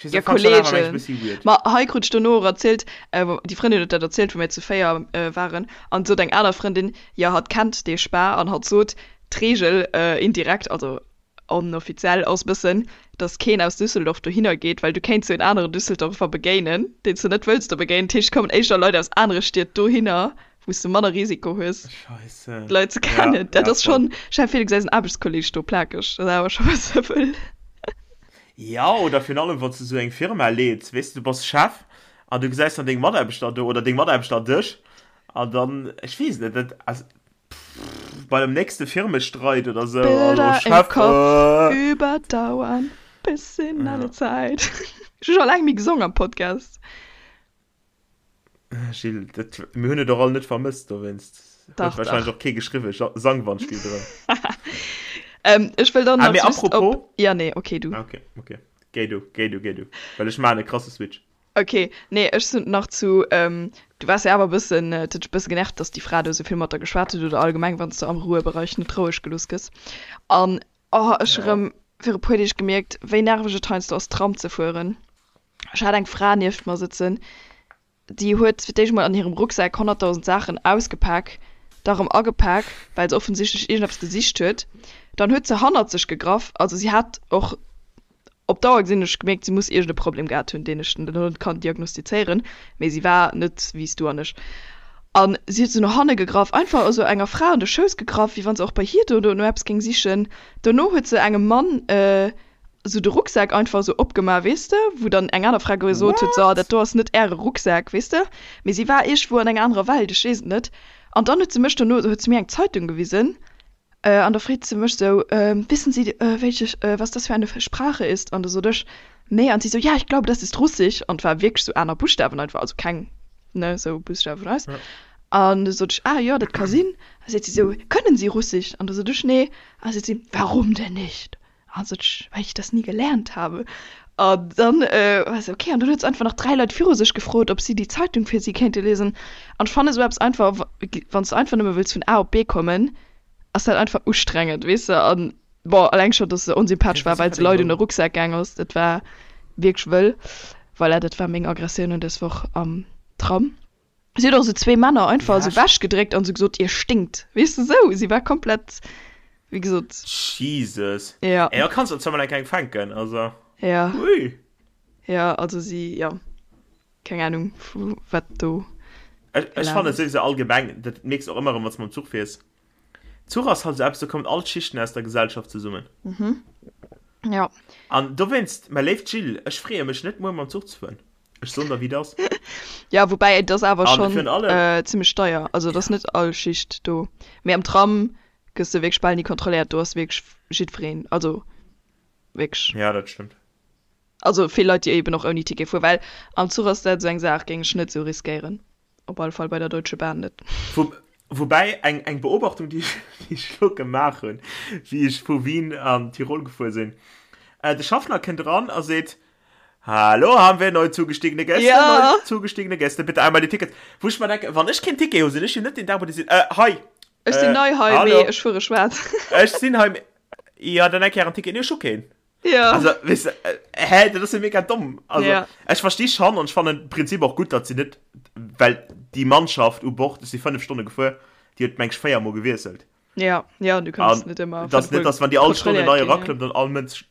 Ja, Kollegen. Ma hei krut ech dono och erzielt, déi Frëndin huet dat erzielt, wou mir zu 4 waren, an sot eng aner Frëndin, jo hatt kennt dee Spa an hatt sot, d'Reegel indirekt, also onoffiziell, ass bëssen, dass keen aus Düsseldorf dohinner geet, well du kéints jo en aneren Düsseldorfer begéinen, deen s du net wëlls do begéinen. Dat heescht, et kommen éischter Leit aus anere Stied dohinner, wou s du manner Risiko hues, d'Leit ze kennen. Dat ass schonn, stell dir vir, du gesäis en Aarbechtskolleeg do plakeg, dat ass awer scho bësse wëll. Jo, oder virun allem, wann s du esou eng Firma leeds, weess de, du bass Chef an du gesäis dann deng Mataarbechter do oder deng Mataarbechter dech an dann, ech weess net, dat, also, pff, bei dem nächste Firmestreit oder esou, hallo Bilder im Chef, Kopf äh. überdauern bis in alle Ja. Zeit. Ech hu scho laang méi gesong am Podcast. Gilles, dat, mir hunn et och all net vermësst, dowéinst huet Dach, wahrscheinlech dach. och kee geschriwwen, Sang Wandspill drëm. Ähm, ech wëll dann Ah, nach mee just op. apropos. Ja, nee, okay, du. Ah, okay, okay. Géi du, géi du, géi du. Well ech maachen e krasse Switch. Okay, nee, ech sinn nach zu, ähm, du waars jo awer e bëssen, et huet dech e bësse genervt, dass déi Fra do esou vill mat der geschwat huet oder allgemeng, wann s de am Ruhebereich net roueg gelooss gëss. An, oh, ech hu Ja. rëm viru puer Deeg gemierkt, wéi nerveg et heiansdo ass, Tram ze fueren. Ech hat eng Fra nieft mer sëtzen, déi huet fir d'éischt mol an hirem Rucksak 100.000 Saachen ausgepak, da rëm agepak, well se offensichtlech iergendeppes gesicht huet. Dann huet se hannert sech gegraff, also si hat och op Dauer gesinn, hunn ech gemierkt, si muss iergend e Problem gehat hunn, deen ech elo net kann diagnostizéieren, mee si war net wéi s du an ech. An si huet esou no hanne gegraff, einfach esou enger Fra an de Schouss gegraff, wéi wann se och bei hir do no eppes géing sichen. Dono huet se engem Mann sou de Rucksak einfach sou opgemaach, weess de, wou dann eng aner Fra gesot huet, so, dat do ass net äre Rucksak, weess de. Mee si war iergendwou an enger anerer Welt, ech weess et net. An dann huet se mech dono, huet se mir eng Zeitung gewisen, an da freet se mech sou, Wissen Sie, welche, was das für eine Sprache ist? An da sot ech, Nee. An si sou, Ja, ich glaube, das ist Russisch. An et war wierklech sou aner Buschtawen einfach, also keng, ne, sou Buschtawe vun eis. An du sot ech, Ah jo, dat ka sinn. A seet si sou, Können Sie Russisch? An da sot ech, Nee. A seet si, Warum denn nicht? Also well ich das nie gelernt habe. An dann war se okay. An dann huet se einfach nach 3 Leit viru sech gefrot, ob si déi Zeitung fir si kéinte liesen. An ech fannen esou eppes einfach, wann s de einfach nëmme wëlls vun A op B kommen, ass dat einfach ustrengend, weess de. An bon, alleng scho, dass se onsympathesch war, well se Leit un de Rucksak gaang ass, dat war wierklech wëll. Voilà, dat war meng Aggressioun un dës Woch am Tram. Si huet och esou zwee Männer einfach esou wechgedréckt an esou gesot, Ihr stinkt. Weess de, esou. Si war komplett, wéi gesot. Jesus. Ja. Ey, da kanns de zwar mol eng kleng fänken, also. Ja. Ui. Ja, also si, ja. Keng Ahnung, vu wat do. Ech, ech fannen souwisou allgemeng, dat mierks de och ëmmer erëm, wann s de mam Zuch fiers, Zuch ass halt esou eppes, do kommen all d'Schichten aus der Gesellschaft zesummen. Mhm. Ja. An dowéinst, mäi léift Jill, ech freeë mech net, muer mam Zuch ze fueren. Ech soen der, wéi et ass. Ja, woubäi et ass awer schonn zimmlech deier. Also et ass net all Schicht do. Mee am Tram gëss de wierklech bal ni kontrolléiert. Do ass wierklech jiddwereen, also wierklech. Ja, dat stëmmt. Also vill Leit, déi eben och ouni Ticket fueren, well am Zuch ass dat esou eng Saach, géing ech net esou riskéieren. Op alle Fall bei der Deutsche Bahn net. Woubäi eng eng Beobachtung, déi ech elo gemaach hunn, wéi ech vu Wien an Tirol gefuer sinn, De Schaffner kënnt eran a seet, Hallo, haben wir neu zugestiegene Gäste? Ja. Neu zugestiegene Gäste, bitte einmal die Tickets. Wou ech mer denken, wann ech keen Ticket hu, sinn ech jo net deen Dag, wou déi sinn, Äh, hei! Ech sinn nei hei, mee ech fuere schwaarz. Ech sinn hei, mee. Jo, dann eng Kéier en Ticket. Nee, ech hu keen. Ja. Also, weißt du, äh, hä, das ist ja mega dumm. Also, ja. ich verstehe schon und ich fand im Prinzip auch gut, dass sie nicht, weil die Mannschaft u Bord, ist sie fünf Stunden gefahren, die hat meng ich viermal gewechselt. Ja, ja, du kannst nicht immer. Das nicht, dass wenn die alle Stunde neu raklummt, dann all Mensch,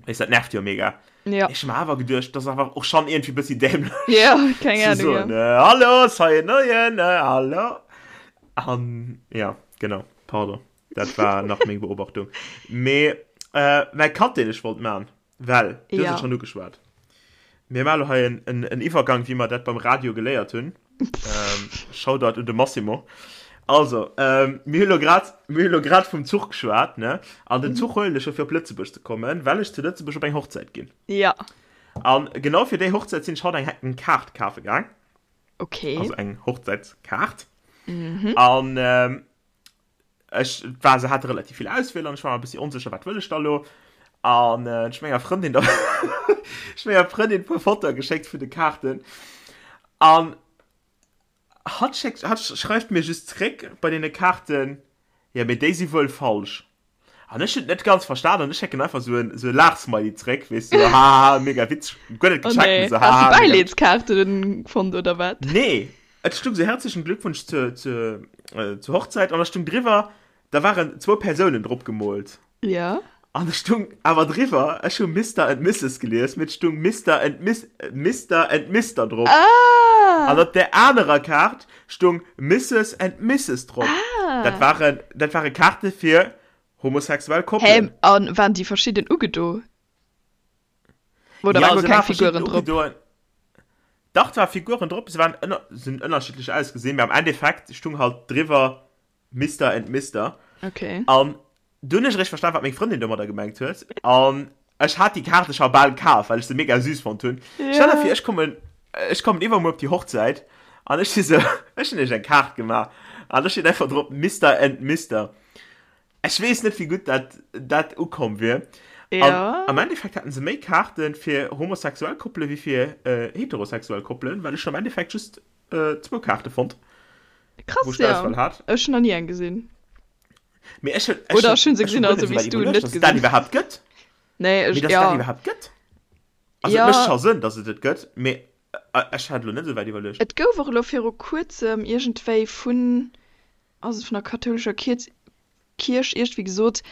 weißt, das nervt ja mega. Ja. Ich hab mir aber gedacht, das ist einfach auch schon irgendwie ein bisschen dämlich. Ja, keine Ahnung. So, ja. ne, hallo, sei neuen, ne, hallo. Um, ja, genau, pardon. Dat war nach meng Beobachtung. Mee äh, mäi Cut, deen ech wollt man, well du hues Ja. et schonn ugeschwat. Mir maache lo hei en, en, en Iwwergang, wéi mer dat beim Radio geléiert hunn. Ähm, Shoutout un de Massimo. Also, ähm, mir hu lo grad, mir hu lo grad vum Zuch geschwat, ne? An den Zuch huelen ech jo fir op Lëtzebuerg ze kommen, well ech zu Lëtzebuerg op eng Hochzäit ginn. Ja. An genau fir déi Hochzäit sinn ech haut eng, eng Kaart kafe gaang. Okay. Also eng Hochzäitskaart. An ähm, Ech war, se hate relativ vill Auswiel an ech war mer e bëssi onsécher, wat wëll ech da lo? An ech hu menger Frëndin da ech hu menger Frëndin e puer Fotoe geschéckt vun de Kaarten an hatt schéckt, hatt schreift mir just zréck bei deene Kaarten, jo mee déi si wuel falsch. An ech hunn et net ganz verstan an ech schécken einfach sou en sou e Laachsmiley zréck, weess du, hahaha, mega witzeg, guer net Oh gecheckt, nee, mee sou has du hahaha, mega witzeg. Bäileedskaarten fonnt oder wat? Nee, et stung sou herzlichen Glückwunsch zur zur zur Hochzeit an da stung driwwer, da waren zwou Persounen drop gemoolt. Ja. An da stung awer driwwer, ech hu Mister and Misses gelies, mee et stung Mister and Miss Mister and Mister drop. Ah! An op där anerer Kaart stung Misses and Misses drop. Ah! Dat waren, dat ware Kaarte fir homosexuell Koppelen. Hä, an waren déi verschidden ugedo? Oder Ja, waren guer se keng ware verschidden Figuren drop? ugedoen. Dach, et ware Figuren drop, se waren ënner, se hunn ënnerschiddlech ausgesinn, mee am Endeffekt stung halt driwwer Mister and Mister. Okay. An du hunn ech eréischt verstan, wat meng Frëndin domadder gemengt huet. An ech hat déi Kaarte scho bal kaf, well ech se mega süß fonnt hunn. Stell der Ja. vir, ech kommen, ech kommen iwwermuer op déi Hochzäit an ech si sou, ech hunn iech eng Kaart gemaach an do steet einfach drop Mister and Mister. Ech weess net, wéi gutt dat, dat ukomm wier. An Ja. am Endeffekt haten se méi Kaarte fir homosexuell Koppele wéi fir heterosexuell Koppelen, well ech hunn am Endeffekt just zwou Kaarte fonnt. Krass, wou ech ja. d'Auswahl hat. Ech hunn nach ni eng gesinn. Mee ech hunn, ech Oder hunn, ech hunn se ech hunn gesinn, guer also net wéi esou s du wäit net iwwerluecht, dass et dat gesinn. iwwerhaapt gëtt. Nee, Mee ech, dass et dat ja. iwwerhaapt gëtt. Also et Ja. mécht scho Sënn, dass et et gëtt, mee ech hat elo net esou wäit iwwerluecht. Et gouf och elo viru kuerzem iergendwéi vun, ass et vun der kathoulescher Kierz, Kierch iergendwéi gesot,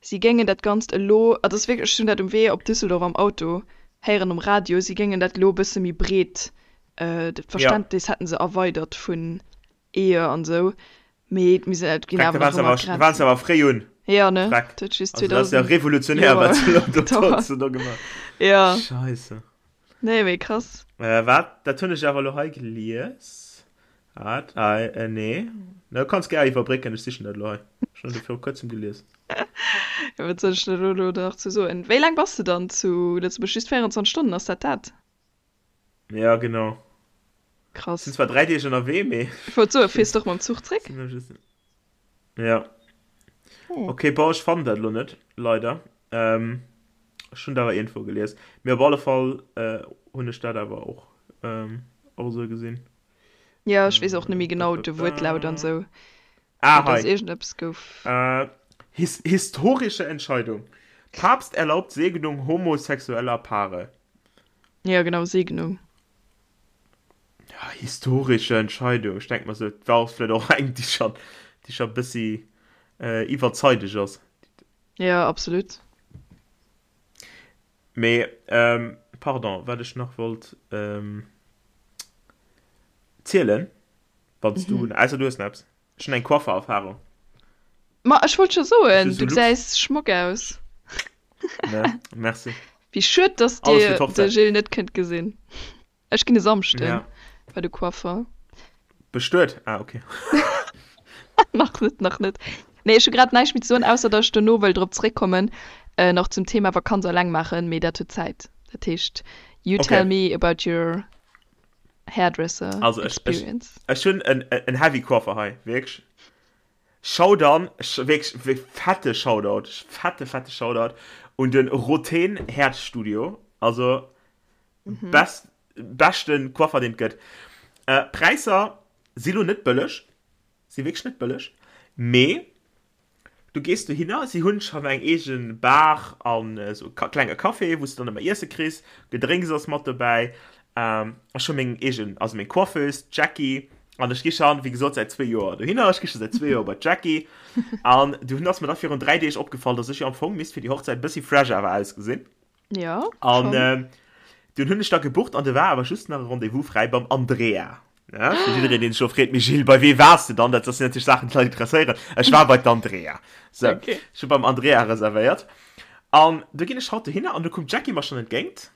si géingen dat Ganzt elo, et ass wierklech, ech hunn dat um Wee op Düsseldorf am Auto héieren um Radio, si géingen dat elo e bësse méi breet, Ja. d'Verständnis hätten se erweidert vun Ehe an esou, mee et misst et ginn Freck, da awer waren nach se ëmmer awer, da waren se Grenzen. awer fréi un. Ja, ne? Freck. Dat huet just Also dat ass ja 2000 revolutionär, Joer wat se elo do, wat gedauert. se do gemaach. Ja. Scheisse. Nee, mee krass. Äh, wat? Dat hunn ech awer elo hei gelies. Wat? Ah, äh, nee. Na, du kanns gär iwwerbrécken, ech sichen dat elo hei. Ech hunn dat viru kuerzem gelies. Ja, wat soll ech da elo nach zu soen? Wéi laang bass de dann zu Lëtzebuerg? Just 24 Stonnen, ass dat dat? Ja, genau. Krass. Sinn zwar 3 Deeg ënnerwee, mee. Ech wollt soen, fiers de och mam Zuch zréck? Ja. Hm. Okay, bon, ech fannen dat elo net, leider. Ähm, ech hunn dat awer iergendwou gelies. Mee op alle Fall äh, hunn ech dat awer och, ähm, och esou gesinn. Ja, ech weess och net méi genau de Wuertlaut an esou. Ah, Mee dass hei. iergendeppes gouf. Äh, his historische Entscheidung. Papst erlaubt Segnung homosexueller Paare. Ja, genau, Segnung. Ja, historische Entscheidung. Ech denk mer sou, et war vläicht och eng, déi schon, déi schon bëssi äh, iwwerzeideg ass. Ja, absolut. Mee, ähm, pardon, wat ech nach wollt ähm, zielen. Wann s du, ausser du hues nach eppes. Ech hunn eng Coiffer-Erfahrung. Ma ech wollt scho soen, du gesäis schmock aus. Ne, merci. Wéi schued, dass dir de Gilles net kënnt gesinn. Ech ginn e Samschden ja. bei de Coiffer. Bestuet? Ah, okay. nach net, nach net. Nee, ech hu grad näischt méi ze soen, ausser dass ech dono wëll drop zréckkommen, äh, nach zum Thema Vakanz alleng maachen, mee dat huet Zäit. Dat heescht, you okay. tell me about your hairdresser also, experience. Ech, ech, ech hunn en, en heavy Coiffer hei, wierklech. Shoudown, wierklech fette Shoutout, fette, fette Shoutout un den Roten Herzstudio. Also, mhm. best, beschten Coiffer, den et gëtt. Äh, Präisser si lo net bëlleg, si wierklech net bëlleg, mee du gees dohinner, si hunn schonn eng eegen Bar an esou e klenge Café, wou s du dann ëmmer Iesse kriss, Gedrénks ass mat dobäi. Ähm, ech hu meng eegen, also meng Coiffeuse, d'Jackie, an ech gi schonn, wéi gesot, säit zwee Joer dohinner, ech gi scho säit zwee Joer bei d'Jackie. An dunn ass mir da virun 3 Deeg opgefall, dass ech jo am Fong misst fir déi Hochzäit e bëssi fresh awer ausgesinn. Ja, An schon. ähm, dunn hunn ech da gebucht an do war awer just nach e Rendez-vous fräi beim Andrea. Ja, fir jiddereen, deen sech elo freet, Mee Gilles, bei wee waars de dann? Dat sinn natierlech Saachen, déi d'Leit interesséieren. Ech war bei d'Andrea. So, Okay. ech hu beim Andrea reservéiert. An du ginn ech haut dohinner an du koum d'Jackie mer schonn entgéint.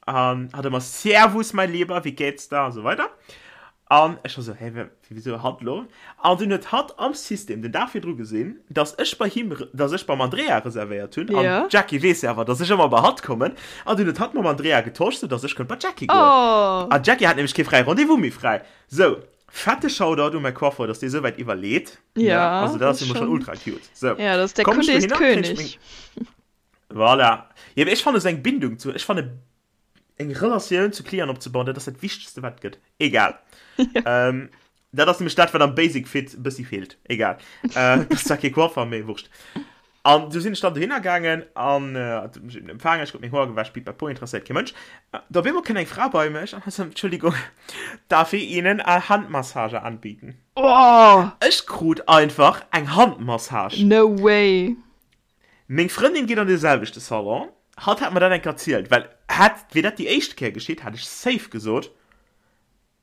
An hat ëmmer Servus, mein Lieber, wie geht's da? A sou weider. An ech war sou, hä, wisou hatt elo? An dunn huet hatt am System den Dag virdru gesinn, dass ech bei him, dass ech beim Andrea reservéiert hunn. An Ja. d'Jackie weess jo awer, dass ech ëmmer bei hatt kommen. An dunn huet hatt mam Andrea getosch, sou dass ech konnt bei d'Jackie goen. Oh! An d'Jackie hat nämlech kee fräie Rendez-vous méi fräi. Sou, fette Shoutout u mäi Coiffeur, dass dee sou wäit iwwerleet, ne? Ja, Also dat dat ass ass jo mol schonn schonn. ultra cute. Sou, Ja, dat ass der komm ech Kunde ist dohinner, kréien ech König. meng. Voilà. Jo, mee ech fannen esou eng Bindung zu, ech fanne eng Relatioun zu Clienten opzebauen, dat ass dat Wichtegste wat et gëtt. Egal. Ähm, dat ass nämlech dat wat am Basic Fit e bëssi feelt. Egal. Äh, dat ass zwar kee Coiffer, mee wurscht. An du sinn ech dann dohinner gaangen an äh, hat mech eben empfaangen, ech krut meng Hoer gewäsch, pipapo, interesséiert kee Mënsch. Äh, da op eemol kënnt eng Fra bei mech an hat sot, Entschuldigung, darf ich Ihnen eine Handmassage anbieten? Oh! Ech krut einfach eng Handmassage. No way! Meng Frëndin geet an dee selwechte Salon. Hatt hat mer dat eng Kéier erzielt, well hätt, wier dat déi éischt Kéier geschitt, hätt ech safe gesot,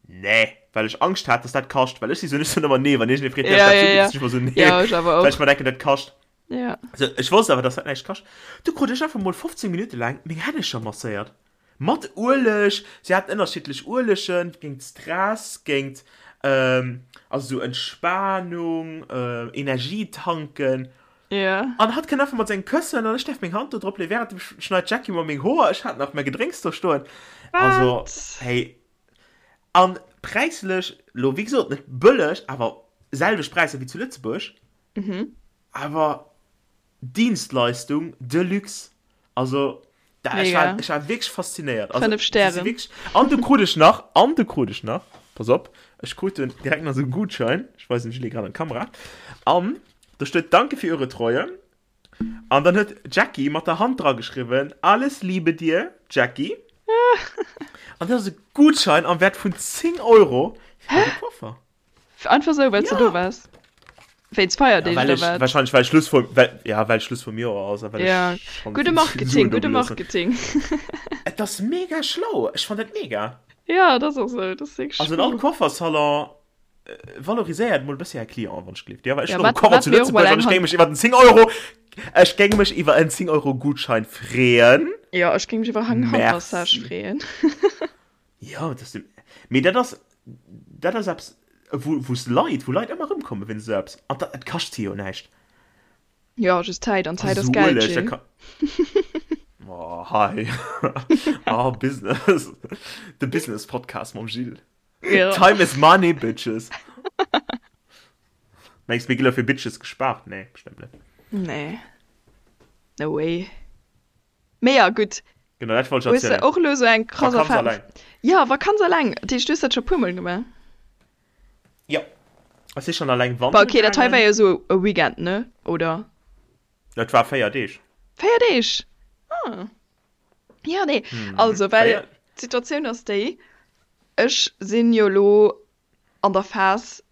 Nee, well ech Angscht hat, dass dat kascht. Well ech si sou, ech soen ëmmer nee, wann iergendee freet, däerf Ja, ech dat ja, ubidden, ja. sinn ech ëmmer sou, nee, Ja, ech awer well ech och. mer denken, dat kascht. Ja. Sou, ech wosst awer, dass dat näischt kascht. Du krut ech einfach mol 15 Minutte laang meng Hännecher masséiert. Mat Ueleg, si haten ënnerschiddlech Uelegen, géint Stress, géint, also sou Entspanung, Energie tanken. Ja. An hatt kënnt einfach mat sengem Këssen an ech däerf meng Hand do drop leeën, wärend dem schneit d'Jackie mer meng Hoer, ech hat nach mäi Gedrénks do stoen. Also, Wat? hey. An präislech, lo wéi gesot net bëlleg, awer selwecht Präisser wéi zu Lëtzebuerg. Awer Dienstleistung de luxe. Also da, ech war, ech war wierklech faszinéiert. Also, 5 Stären. Wirklich, an du krut ech nach, an du krut ech nach, pass op, ech krut den direkt nach so einen Gutschein, ich weisen Julie gerade an d'Kamera, an do steet Danke für Ihre Treue. An dann huet Jackie mat der Hand dra geschriwwen, Alles Liebe dir, Jackie. An dat ass e Gutschein am Wert vun 10 Euro fir de Coiffer. Einfach sou, well s de do waars? Wéinst Feierdeeg Ja, well oder ech, wat? wahrscheinlech well Schluss vum, well, ja, well Schluss vum Joer ass a well Ja, ech schonn gudde vill Marketing, Suen do gudde gelooss hunn. Marketing. Et ass mega schlau, ech fann dat mega. Ja, et ass och sou, et ass wierklech Also an all schlau. Coiffersalon valoriséiert mol e bëssi är Clienten, wann ech gleeft. Jo, well ech Ja, hunn och e wat, Koffer wat zu mir och mol Lëtzebuerg an eng ech géing Hand. mech iwwer en 10 Euro, ech géing mech iwwer en 10 Euro Gutschein freeën. Jo, ech géing mech iwwer eng Handmassage Merci. freeën. Jo, dat ass, mee dat ass, dat ass eppes, wou, wou s Leit, wou Leit ëmmer erëmkomme wéinst esou eppes. An dat, et kascht si jo näischt. Jo, just Zäit, an Zäit Also ass esou Geld, Ueleg, dat Jill. ka, oh, hei, oh, Business, de Business-Podcast mam Jill. Jo. Time is money, bitches. Mengs, mir gi lo fir Bitches gespaart? Nee, bestëmmt net. Nee, no way. Mee ja, gutt. Genau, dat wollt ech Hues de erzielen. och elo sou eng krass Vakanz Erfahrung? alleng. Ja, Vakanz alleng. Dat heescht, du hues dat scho puer Mol gemaach? Jo. Ech si schonn alleng Bah, wandere okay, dat hei war gaangen. jo sou e Weekend, ne? Oder? Et war 4 Deeg. 4 Deeg? Ah. Ja, nee. Also, well 4. d'Situatioun ass déi, ech sinn jo elo an der Phas,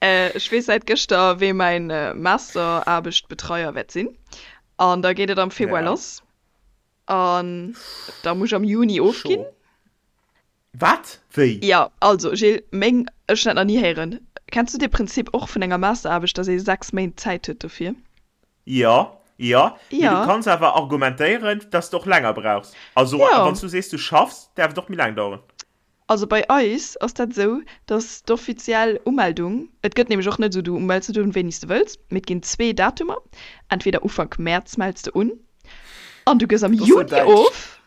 ech weess säit gëschter, wee mäin Masteraarbechtbetreier wäert sinn. An da geet et am Februar Ja. lass. An da muss ech am Juni ofginn. Scho. Wat? Wéi? Jo, also Gilles, meng. Ech hunn dat nach ni héieren. Kenns du dee Prinzip och vun enger Masteraarbecht, dass ee 6 Méint Zäit huet dofir? Jo, jo, mee du Jo. kanns awer argumentéieren, dass de och länger brauchs. Also Jo. wann s du sees, du schaffs, däerf et och méi laang daueren. Also bei eis ass dat esou, dass d'offiziell Umeldung, et gëtt nämlech och net esou, du mells net un wéini s de wëlls, mee et ginn zwee Datumer, entweder Ufank Mäerz mells de un an du gëss am Dat ass sou Juni däitsch. of,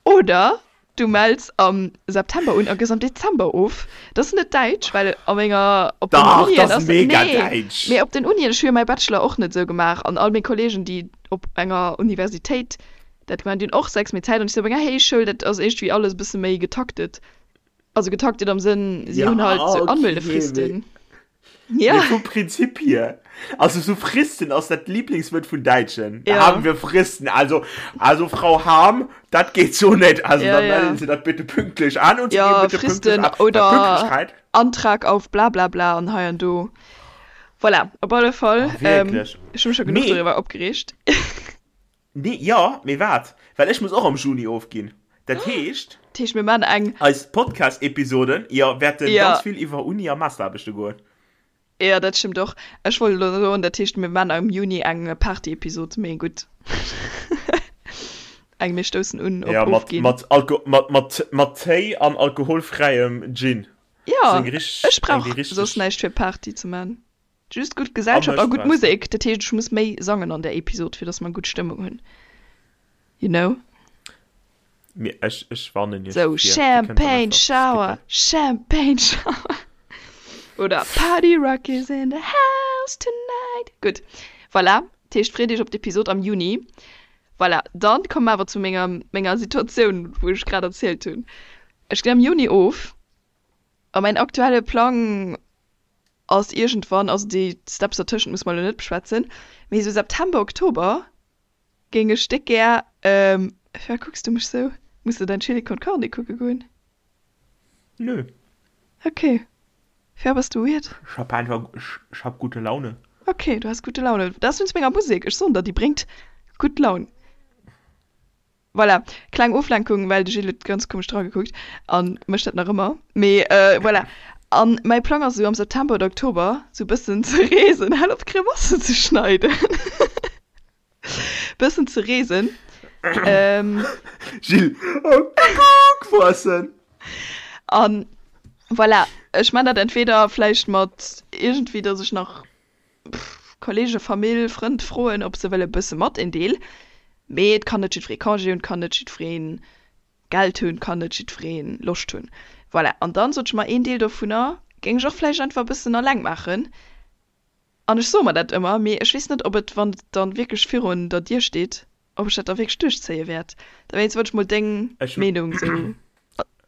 oder Du mells am September un a gëss am Dezember of. Dat ass net däitsch, well a menger, op den Dach, Unien dat ass ass, mega nee, däitsch! mee op den Unien, ech hu jo mäi Bachelor och net esou gemaach an all meng Kollegen, déi op enger Universitéit dat gemaach hunn, déi hunn och 6 Méint Zäit an ech si op enger Héichschoul, dat ass iergendwéi alles e bësse méi getaktet. Also getaktet am Sënn, si Ja, hunn halt sou okay, mee. Anmeldefristen. Mee Ja. vum Prinzip hier, also so Fristen ass dat Lieblingswuert vun Däitschen. Da Ja. haben wir Fristen. Also, also Frau Harm, dat geht so net. Also Ja, dann ja. melden Sie dat bitte pünktlich an und Sie Ja, geben bitte pünktlich Fristen ab. Weil oder Pünktlichkeit. Antrag auf bla bla bla an hei an do. Voilà, op alle Fall. Oh, wirklich. Ähm, ech hu mech scho genuch Mee, doriwwer opgereegt. nee, ja, mee wat? Well ech muss och am Juni ofginn. Dat heescht. Dat heescht, mir maachen eng. Eis Podcast-Episoden, jo, wäerten Ja. ganz vill iwwer Uni a Masteraarbechte goen. Jo, dat stëmmt och. Ech wollt elo soen, dat heescht, mir maachen am Juni eng Party-Episod, mee gutt. Eng mir stoussen un op Ja, mat, ofginn. mat, Alko mat, mat, mat Téi an alkoholfräiem Gin. Jo, Seng richteg, ech eng brauch déi soss richteg. näischt fir Party ze man. Just gutt A Gesellschaft a mech gutt brauchs de. Musek. Dat heescht, ech muss méi sangen an där Episod, fir dass mer gutt Stëmmung hunn. You know? Mir, ech, ech warnen iech Sou, vir, dir kënnt dann Champagne einfach Shower, skippen. Champagne Shower. Oder Party Rock is in the house tonight. Gutt, voilà. Dat heescht, freet iech op d'Episod am Juni. Voilà, dann komme mer awer zu menger, menger Situatioun, wou ech grad erzielt hunn. Ech ginn am Juni of a mäin aktuelle Plang ass iergendwann, also déi Steps dertëschent musse mer elo net beschwätzen, mee esou September, Oktober géing ech déck gär, firwat kucks du mech sou? Muss de däin Chili con Carne kucke goen? Nö. Ok. Firwat bass du weird? Ech hab einfach, ech hab gute Laune. Ok, du has gute Laune. Dat ass wéinst menger Musek, ech soen der, déi bréngt gutt Laun. Voilà, kleng Oflenkung, well de Gilles huet ganz komesch dragekuckt an mécht dat nach ëmmer. Mee voilà. An mäi Plang ass esou am September oder Oktober sou bëssen ze reesen, hal op Grimassen ze schneiden, bëssen ze reesen. Gilles, oh Kuckuck, Voissen! An voilà, ech man dat entweder vläicht mat iergendwéi, dass ech nach Kollege, Famill, Frënd froen, ob se wëlle bësse mat een Deel. Mee et kann net jiddweree Congé hunn, et kann net jiddweree Geld hunn, et kann net jiddweree Loscht hunn. Voilà. An dann sot ech mer, een Deel dovunner géing ech och vläicht einfach e bëssen alleng maachen. An ech soe mer dat ëmmer, mee ech weess net, ob et, wann et dann wierklech virun der Dier steet, ob ech dat da wierklech duerchzéie wäert. Dowéinst wollt ech mol deng Meenung esou,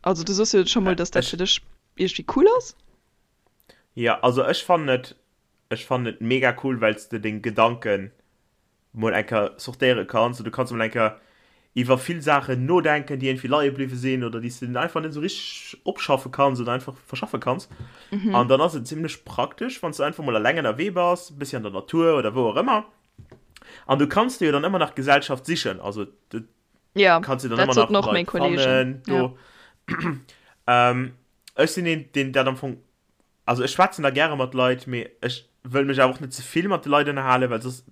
also du soss jo scho mol, dass dat fir dech iergendwéi cool ass. Jo, also ech fannen et, ech fannen et mega cool, well s de deng Gedanken mol eng Kéier sortéiere kanns an du kanns mol eng Kéier iwwer vill Saachen nodenken, déi iergendwéi leie bliwwe sinn oder déi s de einfach net esou richteg opschaffe kanns oder einfach verschaffe kanns. An dann ass et zimlech praktesch, wann s du einfach mol eleng ënnerwee bass, e bëssi an der Natur oder wou och ëmmer. An du kanns dir jo dann ëmmer nach Gesellschaft sichen, also du Ja, kanns dir dann dat ëmmer soten nach och meng Leit Kollegen. fannen do. Ja. Ech sinn een, deen dat am Fong, also ech schwätzen da gäre mat Leit, mee ech wëll mech awer och net ze vill mat de Leit ënnerhalen, well soss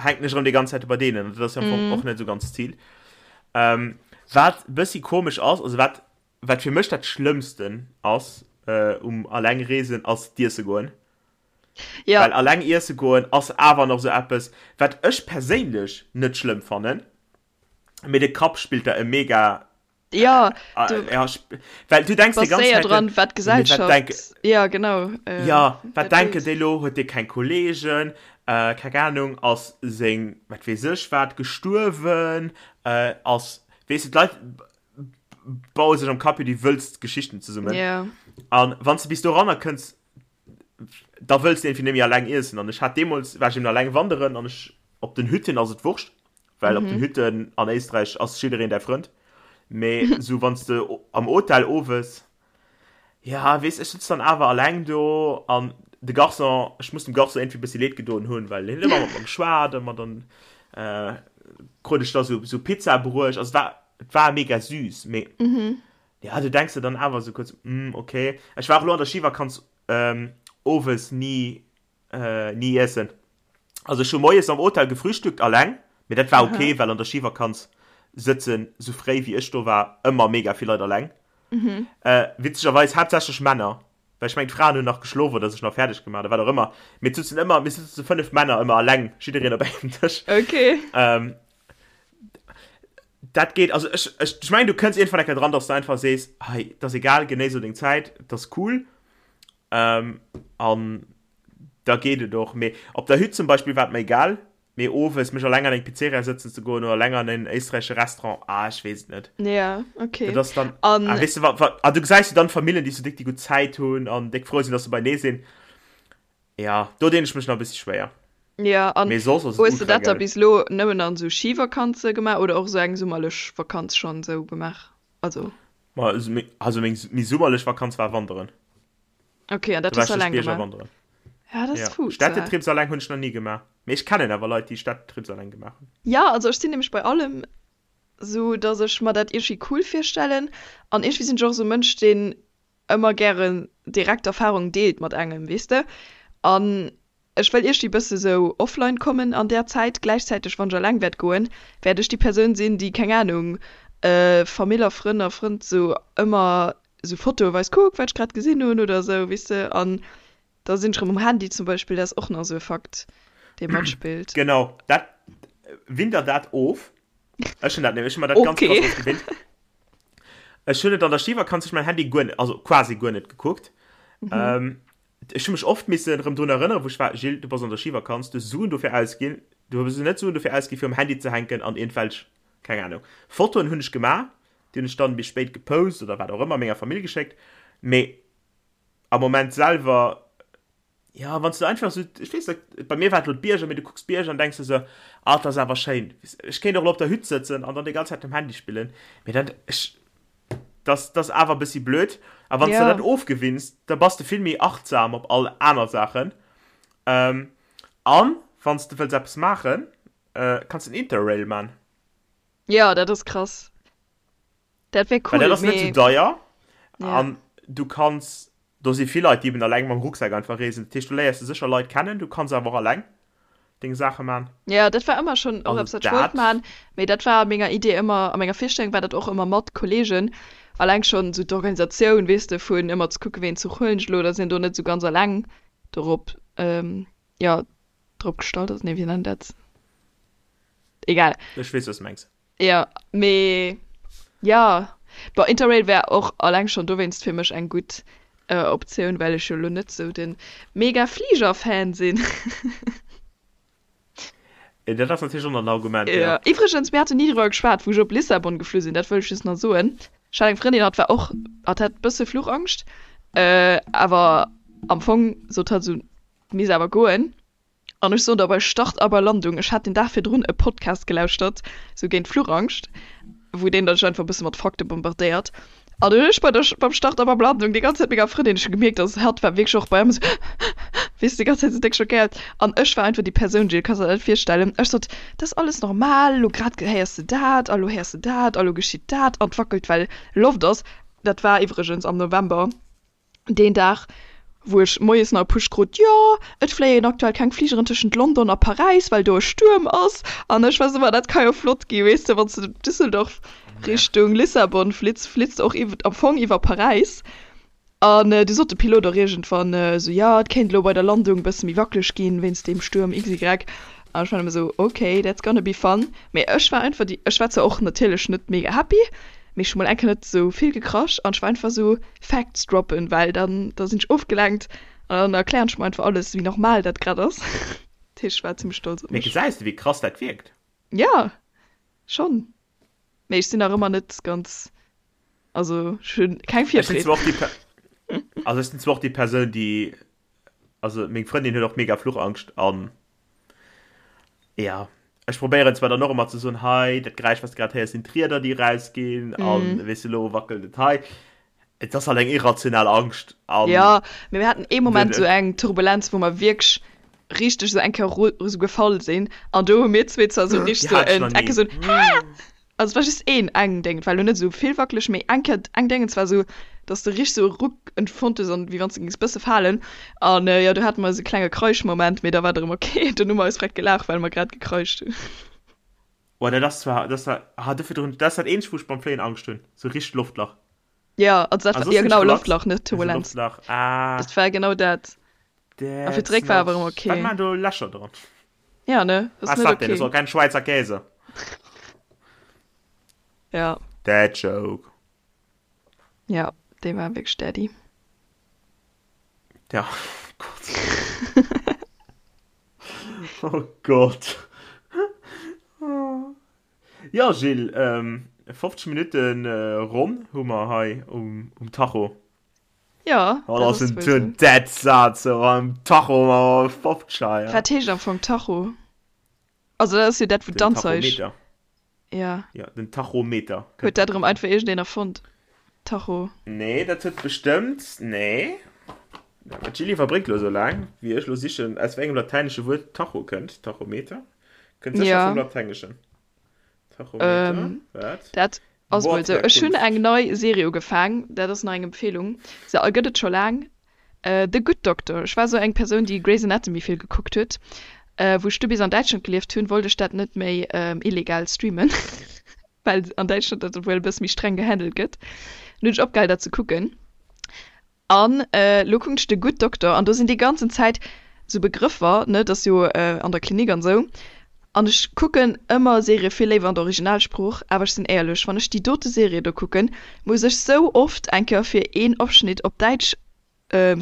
hänken ech erëm déi ganz Zäit bei deenen an dat ass jo am Fong och net esou ganz d'Zil. Ähm, wat e bëssi komesch ass, also wat, wat fir mech dat Schlëmmsten ass um alleng reesen, ass d'iesse goen. Ja. Well alleng iesse goen ass awer nach esou eppes, wat ech perséinlech net schlëmm fannen, mee de Kapp spillt da e mega Ja, du ja, well du denkst die ganze séier Zeit dran, wat d'Gesellschaft wat denk, ja genau äh, ja wat denken déi lo huet dee keng Kollegen äh, keng Ahnung ass seng wat weess ech wat gestuerwen äh, ass weess du d'Leit baue sech am Kapp jo déi wëllst Geschichten zesummen yeah. an wann s du bis doranner kënns da wëlls du irgendwie net méi alleng iessen an ech hat deemools war ech eben alleng wanderen an ech op den Hütten ass et wurscht Well op den Hütten an Éisträich ass jiddereen däi Frënd. Mee sou wann s de am Hotel owes, ja weess, ech sëtz dann awer alleng do an de Garçon, ech muss dem Garçon iergendwéi e bëssi leed gedoen hunn, well hien huet ëmmer mat mer geschwat a mer dann krut ech da sou sou Pizza bruecht. Also et war et war mega süß, mee. Ja, du denks der dann awer esou kuerz, hm, okay. Ech war och elo an der Schivakanz owes ni, ni iessen. Also ech hu moies am Hotel gefrühstückt alleng, mee dat war okay, well an der Schivakanz sëtzen, sou fréi wéi ech do war, ëmmer mega vill Leit alleng. Witzegerweis haaptsächlech Männer, well ech mengen d'Fraen hunn nach geschlof oder sech nach fäerdeg gemaach oder wat och ëmmer. Mee et sutzen ëmmer, mir sutzen 5 Männer ëmmer alleng, jiddereen op engem Dësch. Okay. Dat geet, also ech, ech, ech mengen du kënns iergendwann eng Kéier dran, dass du einfach sees, hei, et ass egal, genéiss elo deng Zäit, et ass cool. Ähm, an da geet et och. Mee op der Hütt zum Beispill war et mer egal, mee owes mech alleng an eng Pizzeria sëtzen ze goen oder alleng an en éisträichesche Restaurant, ah, ech weess et net. Ja, okay. Dat ass dann, an, ah, weess du, wa, wa, ah, du gesäis jo dann Famillen, déi sou déck déi gutt Zäit hunn an déck frou sinn, dass se beienee sinn. Ja, do dinn ech mech nach e bëssi schwéier. Ja, an Mee soss ass et hues de ultra dat da gäil. bis elo nëmmen an sou Schivakanze gemaach oder och sou eng summerlech Vakanz schonn sou gemaach? Also. Ma also meng méi summerlech Vakanz war wanderen. Okay, an dat hues du alleng gemaach? Wanderen. Ja, dat ass fuuss. Städtetrips alleng hunn ech nach ni gemaach. Mee ech kennen awer Leit, déi Städtetrips alleng gemaach hunn. Ja, also ech sinn nämlech bei allem sou, dass ech mer dat iergendwéi cool virstellen an iergendwéi sinn ech och sou e Mënsch, deen ëmmer gären direkt Erfahrung deelt mat engem, weess de. An ech wëll iergdi bësse sou offline kommen an där Zäit. Gläichzäiteg, wann ech alleng wäert goen, wäert ech déi Persoun sinn, déi, keng Ahnung, Famill a Frënn a Frënd sou ëmmer sou Fotoe weist, kuck wat ech grad gesinn hunn oder sou, weess de. An da sinn ech rëm um Handy zum Beispill, dat ass och nach sou e Fakt, dee matspillt. Genau, dat, winn der dat of. Ech hunn dat nämlech, ech hunn mer dat ganz krass ofgewinnt. Ech hunn et an der Schivakanz ech mein Handy guer net, also quasi guer net gekuckt. Mhm. Ähm, ech hu mech oft missen erëm drun erënneren, wou ech war, Gilles, du bass an der Schivakanz, du hues Suen dofir ausginn, du hues net Suen dofir ausginn, fir um Handy ze hänken an iergendwelch, keng Ahnung, Fotoen hunn ech gemaach, déi hunn ech dann méi spéit gepost oder wat och ëmmer, menger Famill geschéckt, mee am Moment selwer Ja, wann s du einfach sou, ech weess net, bei mir war et lo d'Bierger, mee du kucks d'Bierger an denks der sou, ah, dat ass awer schéin. Ech kéint och lo op der Hütt sëtzen an dann déi ganz Zäit um Handy spillen, mee dat, ech, dat, dat ass awer e bëssi blöd. A wann s de dat ofgewinns, da bass de vill méi achtsam op all aner Saachen. An wann s de wëlls eppes maachen, kanns de en Interrail man. Jo, dat ass krass. Dat wär cool, mee. Well dat ass net sou deier an du kanns Do si vill Leit, déi eben alleng mam Rucksak einfach reesen. Dat heescht, do léiers de sécher Leit kennen. Du kanns awer och alleng deng Saache man. Jo, dat war ëmmer schonn och eppes, wat ech wollt man. Mee dat war a menger Idee ëmmer, a menger Virstellung war dat och ëmmer mat Kolleegen. Alleng schonn esou d'Organisatioun, weess de, vun ëmmer ze kucken, ween Zuch huelen ech elo, dass een do net esou ganz alleng dorop, jo, drop gestallt ass. Nee, wéi nennt een dat? Egal. Ech weess, wat s de mengs. Jo, mee jo, bon, Interrail wär och alleng schonn dowéinst fir mech eng gutt Optioun, well ech jo lo net sou de mega Fliger-Fan sinn. Dat ass natierlech och nach en Argument, jo. Jo, iwwregens, mir haten ni driwwer geschwat, wou ech op Lissabon geflu sinn, dat wëll ech just nach soen. Ech hat eng Frëndin, hatt war och, hatt hat e bësse Fluchangscht, awer am Fong sot hatt esou, misst awer goen. An ech soen der, bei Start a bei Landung, ech hat den Dag virdrun e Podcast gelauschtert, sou géint Fluchangscht, wou deen dech einfach e bësse mat Fakte bombardéiert. An dunn hunn ech bei der, beim Start a beim Landung déi ganz Zäit menger Frëndin, ech hu gemierkt, dass hatt war wierklech och bei engem esou, weess de, déi ganz Zäit esou déck schockéiert. An ech war einfach déi Persoun, Jill, kanns der dat net virstellen, ech sot, dat ass alles normal, elo grad héiers de dat a lo héiers de dat a lo geschitt dat an 't wackelt, well Loft ass. Dat war iwwregens am November. Deen Dag, wou ech moies nach e Push krut, jo, et fléien aktuell keng Fligeren tëschent London a Paräis, well do e Stuerm ass. An ech war esou, ma dat ka jo flott ginn, weess de, wann s de Düsseldorf Richtung Lissabon flitts, flitts de och iww, am Fong iwwer Paräis. An du sot de Pilot och iergendwann esou, jo, et kéint elo bei der Landung e bësse méi wackeleg ginn, wéinst deem Stuerm XY. An ech war nëmme esou, ok, that's gonna be fun. Mee ech war einfach déi, ech war zwar och natierlech net mega happy, mee ech hu mol eng Kéier net esou vill gekrasch an ech war einfach esou, Facts droppen, well dann da sinn ech ofgelenkt an dann erklären ech mer einfach alles wéi normal dat grad ass. Dat heescht ech war zimmlech stolz op Mee mech. gesäis de wéi krass dat wierkt? Jo schonn, mee ech sinn nach ëmmer net ganz, also ech hunn keng Ech sinn Virfreed. zwar och déi Per, also ech sinn zwar och déi Persoun déi Also meng Frëndin huet och mega Fluchangscht an ja ech probéieren zwar dann och ëmmer ze soen, hei dat Geräisch wat s de grad héiers sinn d'Rieder déi erausginn an mm. weess de lo wackelt et hei. Et ass halt eng irrational Angscht an Ja, mee mir haten ee Moment sou eng Turbulenz wou mer wierklech richteg sou eng Kéier sou gefall sinn an do hu mir zwee zwar sou richteg sou en Ecke sou Haa! Also et war just een, eng Déng, et war elo net esou vill wackeleg, mee eng Kéier eng Déngens war esou, dass de richteg esou e Ruck empfonnt hues an wéi wann s de géings bësse falen. An jo, do hate mer esou e klenge Kreischmoment, mee da war et erëm ok. Dunn hu mer eis direkt gelaacht, well mer grad gekraischt hunn. Oh, dat ass zwar, dat ass zwar, ah, do virdrun, dat ass dat eenzegt, wou ech beim Fléien Angscht hunn, sou richteg Loftlach. Ja, also dat Ah, war, soss ja sinn ech genau, relax. Loftlach, net Mee sou Turbulenz. Loftlach, ah. Dat war genau dat. A fir That's zeréck war not, awer erëm wat ok. maachen do Lächer dran? Ja, ne, das Was ist net dat denn? Das okay. war kein Schweizer Käse. Ja. Dad Joke. Ja, dee war wierklech Daddy. Ja, oh Gott. oh Gott. Ja, Gilles, ähm, 50 Minuten äh, ronn hu mer hei um, um Tacho. Ja, Oh, dat ass en den Dead Saz so am Tacho ma 50 ja. Wat heescht am Fong Tacho? Also dat ass jo dat wou d'Anzeig. Ja. Ja, den Tachometer. Huet dat erëm einfach iergendeen erfonnt? Tacho. Nee, dat huet bestëmmt, nee. D'Jilly iwwerbréckt lo sou laang, wéi ech lo sichen, aus wéi engem latäinesche Wuert Tacho kënnt. Tachometer? Kënnt sécher Ja. vum Latengeschen. Tachometer, Ähm, wat? dat ass mol sou. Ech hunn Wortherkunft. eng nei Serie ugefaang, dat ass nach eng Empfehlung. Se gëtt et scho laang, The Good Doctor. Ech war sou eng Persoun, déi Grey's Anatomy vill gekuckt huet. Wou ech du bis an Däitschland gelieft hunn, wollt ech dat net méi illegal streamen, well an Däitschland dat wuel e bësse méi streng gehandelt gëtt. Dunn hunn ech opgehal dat ze kucken. An elo kucken ech The Good Doctor an do sinn déi ganzen Zäit sou Begrëffer, ne, dat ass jo an der Klinik an sou. An ech kucken ëmmer Serië vill léiwer an der Originalsprooch, awer ech sinn éierlech, wann ech déi dote Serie do kucken, muss ech sou oft eng Kéier fir een Ofschnitt op Däitsch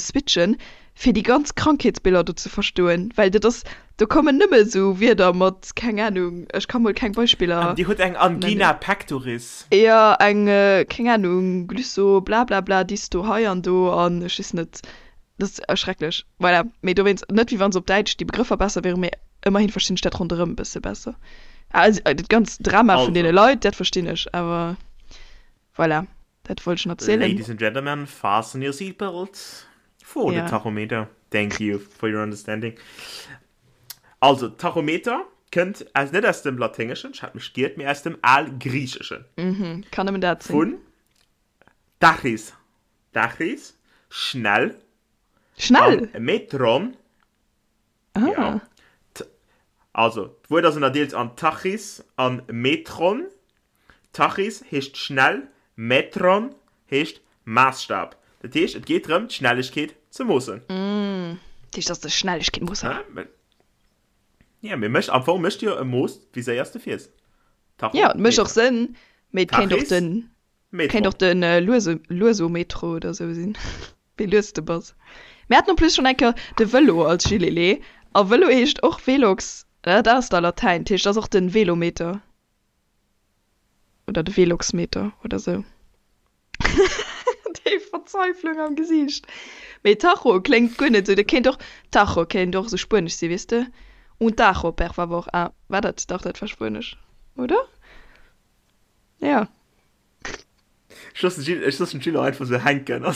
switchen, fir déi ganz Krankheetsbiller do ze verstoen, well dat ass, do kommen nëmme sou Wierder mat, keng Anung, ech ka mol keng Beispiller An Dir hutt eng Angina nennen. pectoris. Jo, eng, keng Anung, Glysso blablabla, Disto hei an do an ech weess net, dat ass schrecklech. Voilà, mee dowéinst, net wéi wann se op Däitsch déi Begrëffer besser wieren, mee ëmmerhin verstinn ech dat ronderëm e bësse besser. Also dat ganzt Drama vun deene Also. Leit, dat verstinn ech, awer voilà, dat wollt ech nach erzielen. Ladies and gentlemen, fasten your seatbelts for the Ja. Tachometer. Thank you for your understanding. Also, Tachometer kënnt aus, net aus dem Laténgeschen, ech hat mech giert, mee aus dem Algriicheschen. Mhm, kann nëmmen dat sinn. Vun Tachys, Tachys, schnell. Schnell? An Metron, Ah. ja. Also, d'Wuert ass ënnerdeelt an Tachys an Metron. Tachys heescht schnell, Metron heescht Maassstab. Dat heescht, et geet drëm, d'Schnellegkeet ze moossen. Dat heescht, dat ass de Schnellegkeetmoosser. Ja, mee mécht, am Fong mécht jo e Mooss, wéi séier s de fiers. Ja, et mécht och Tachometer. Sënn, mee et kéint och Tachys, den, kéint Metron. och den Luese, Luesometro oder sou sinn, wéi lues de bass. Mir haten en plus schonn eng Kéier de Vëlo als Gilele, a Vëlo heescht och Velox, dat ass da Latäin, dat heescht, dat ass och den Velometer. Oder de Veloxmeter oder sou. Déi Verzweiflung am Gesiicht. Mee Tacho kléngt guer net sou. Dat kéint och, Tacho kéint och sou spuenesch sinn, weess de? Un tacho, per favor. Ah, war dat, dach, dat war spuenesch, oder? Ja. Ech loossen Gilles, ech loossen d'Gilles och einfach sou hänken a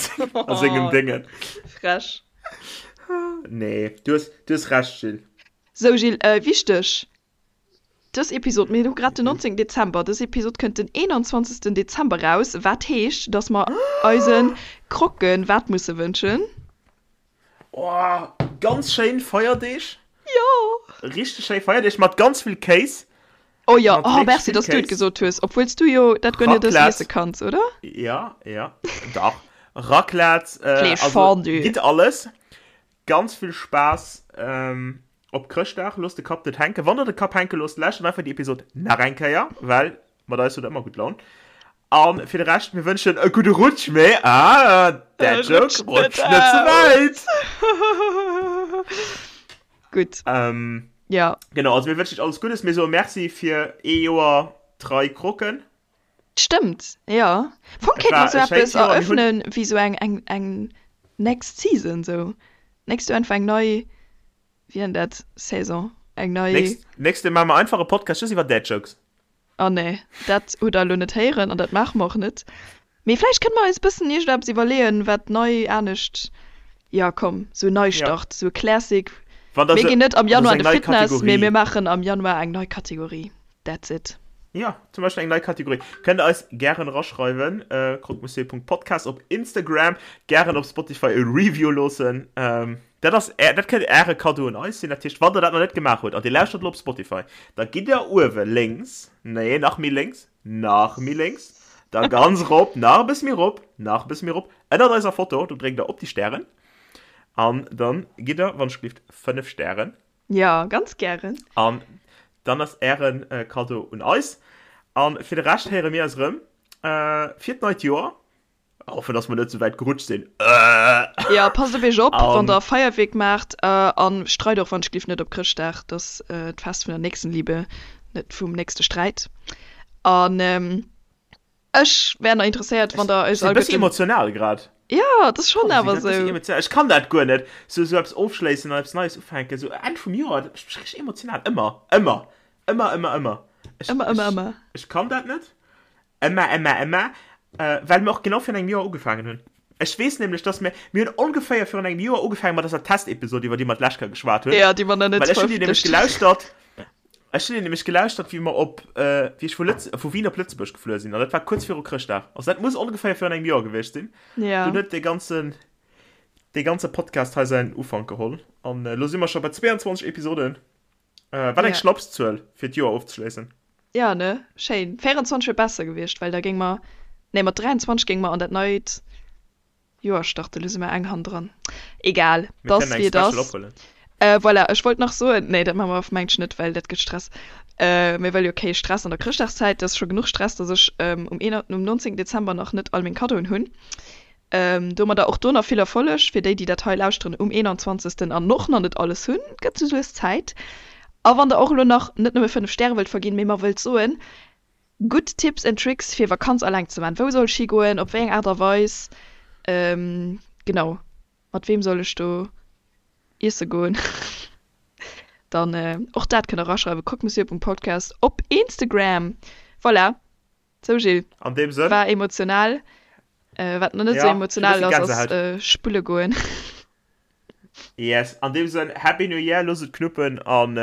sengem Déngen. Frech. Nee, du hues, du hues Recht, Gilles. Sou, Gilles, wichteg, Dës Episod, mir hu grad den 19 Dezember, dës Episod kënnt den 21 Dezember raus, wat heescht, dass mer eise Croquen wat musse wënschen? Oh, ganz schéin Feierdeeg. Jo! Richteg schéi Feierdeeg mat ganz vill Kéis. Oh jo, Mat oh wierklech merci, vill dass du et Kéis. gesot hues, obwuel s du jo dat guer net Raclette. iesse kanns, oder? Ja, ja, dach. Raclette, äh, Fleesch, also Fondue. gitt alles. Ganz vill Spaass op Chrëschtdag. Loosst de Kapp net hänken. Wann der de Kapp hänke loosst, lauschtert einfach déi Episod nach eng Kéier, well mat eis hutt der ëmmer gutt Laun. A fir de Rescht, mir wënschen e gudde Rutsch, mee, ah, Dad Joke, rutscht net ze wäit! Gutt, jo. Genau, also mir wënschen iech alles Guddes. Mir soe Merci fir ee Joer trei Croquen. Stëmmt, jo. Am Fong Et kéinte mer war sou e schéint eppes Joer. Mir hunn. eröffnen wéi sou eng, eng, eng next season sou. Nächst Joer einfach eng nei, wéi nennt dat, Saison, eng nei. Nächst, nächst Joer maache mer einfach e Podcast just iwwer Dad Jokes. Oh nee, dat hutt der elo net héieren an dat maache mer och net. Mee vläicht kënne mer eis e bëssen iergendeppes iwwerleeën, wat nei, anescht, jo komm, sou en Ja. Neistart, sou e Classic. Wann der Mir se, ginn net am wann der Januar sou an eng de nei Fitness, mee Kategorie. mir maachen am Januar eng nei Kategorie. That's it. Ja, zum Beispill eng nei Kategorie. Kënnt der eis gären eraschreiwen, äh, croquemonsieur.podcast op Instagram, gären op Spotify e Review loossen. Ähm, dat ass är, dat kënnt äre Kaddo un eis sinn. Dat heescht, wann der dat nach net gemaach hutt an dir lauschtert elo op Spotify, da gitt der uewe lénks, nee, nach méi lénks, nach méi lénks, da ganz rop, nach e bësse méi rop, nach e bësse méi rop, ënnert eiser Foto, do dréckt der op déi Stären an dann gitt der, wann ech gelift, 5 Stären. Jo, ganz gären. An dann ass ären Kaddo un eis. An fir de Rescht héiere mir eis erëm fir d'neit Joer. Hoffen, dass mer net sou wäit gerutscht sinn. Jo, passt op iech op, wann der Feierwierk maacht. An streit och wann ech gelift net op Chrëschtdag. Dat ass d'Fest vun der Nächstenliebe, net vum nächste Sträit. An Ech wär nach interesséiert, wann der eis all. Ech sinn e bëssi emotional grad. Jo, et ass schonn awer esou. Ech kann dat guer net, sou sou eppes ofschléissen an eppes Neies ufänken, sou Enn vum Joer, dat mécht mech richteg emotional. Ëmmer, ëmmer, ëmmer, ëmmer, ëmmer. Ëmmer, ëmmer, ëmmer. Ech kann dat net. Ëmmer, ëmmer, ëmmer. Well mir och genau virun engem Joer ugefaangen hunn. Ech weess nämlech, dass mir, mir hunn ongeféier virun engem Joer ugefaangen mat eiser Testepisod, iwwer déi mer d'lescht Kéier geschwat hunn. Jo, déi mer nach net verëffentlecht hunn. Well ech hunn déi nämlech gelauschtert. Ech hunn nämlech gelauschtert, wéi mer op, wéi ech vu Lëtz, vu Wien op Lëtzebuerg gefluer sinn, an dat war kuerz viru Chrëschtdag. Also dat muss ongeféier virun engem Joer gewiescht sinn. Ja. Dunn huet dee ganzen, dee ganze Podcast hei säin Ufank geholl. An elo si mer scho bei 22 Episoden. Wat eng Ja. Schnapszuel, fir d'Joer ofzeschléissen. Ja, ne? Schéin. 24 wier besser gewiescht, well da géing mer, nee, mat 23 géinge mer an dat neit Joer starten, lo si mer eng hannendran. Egal, Mir t'ass kënnen eng wéi et Special ass. ophuelen. Voilà, ech wollt nach soen, nee dat maache mer mengt ech net, well dat gëtt Stress. Mir wëlle jo kee Stress an der Chrëschtdagszäit, et ass scho genuch Stress, datt ech um um 19 Dezember nach net all meng Kaddoen hunn. Domadder och do nach vill Erfolleg fir déi, déi dat hei lauschteren um 21. An och nach net alles hunn. Et gëtt sou lues Zäit. A wann der och elo nach net nëmme 5 Stäre wëllt verginn, mee mer wëllt soen, Gutt Tipps and Tricks fir Vakanz alleng ze man. Wou soll ech higoen, op wéi eng Aart a Weis, genau, mat weem soll ech do iesse goen? Dann och dat kënnt der eraschreiwen, croquemonsieurpunktpodcast op Instagram. Voilà, sou Gilles, An deem Sënn. war emotional. Wat nach net sou Ja, emotional ech hu e ass, bëssi ass Gänsehaut. spulle goen. Yes, an deem Sënn, Happy New Year, loosst et knuppen an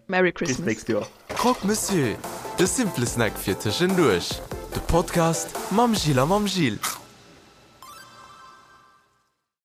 Merry bis Christmas. d'nächst Joer. Croque Monsieur, de simple Snack fir tëschenduerch. De Podcast mam Gilles a mam Gilles.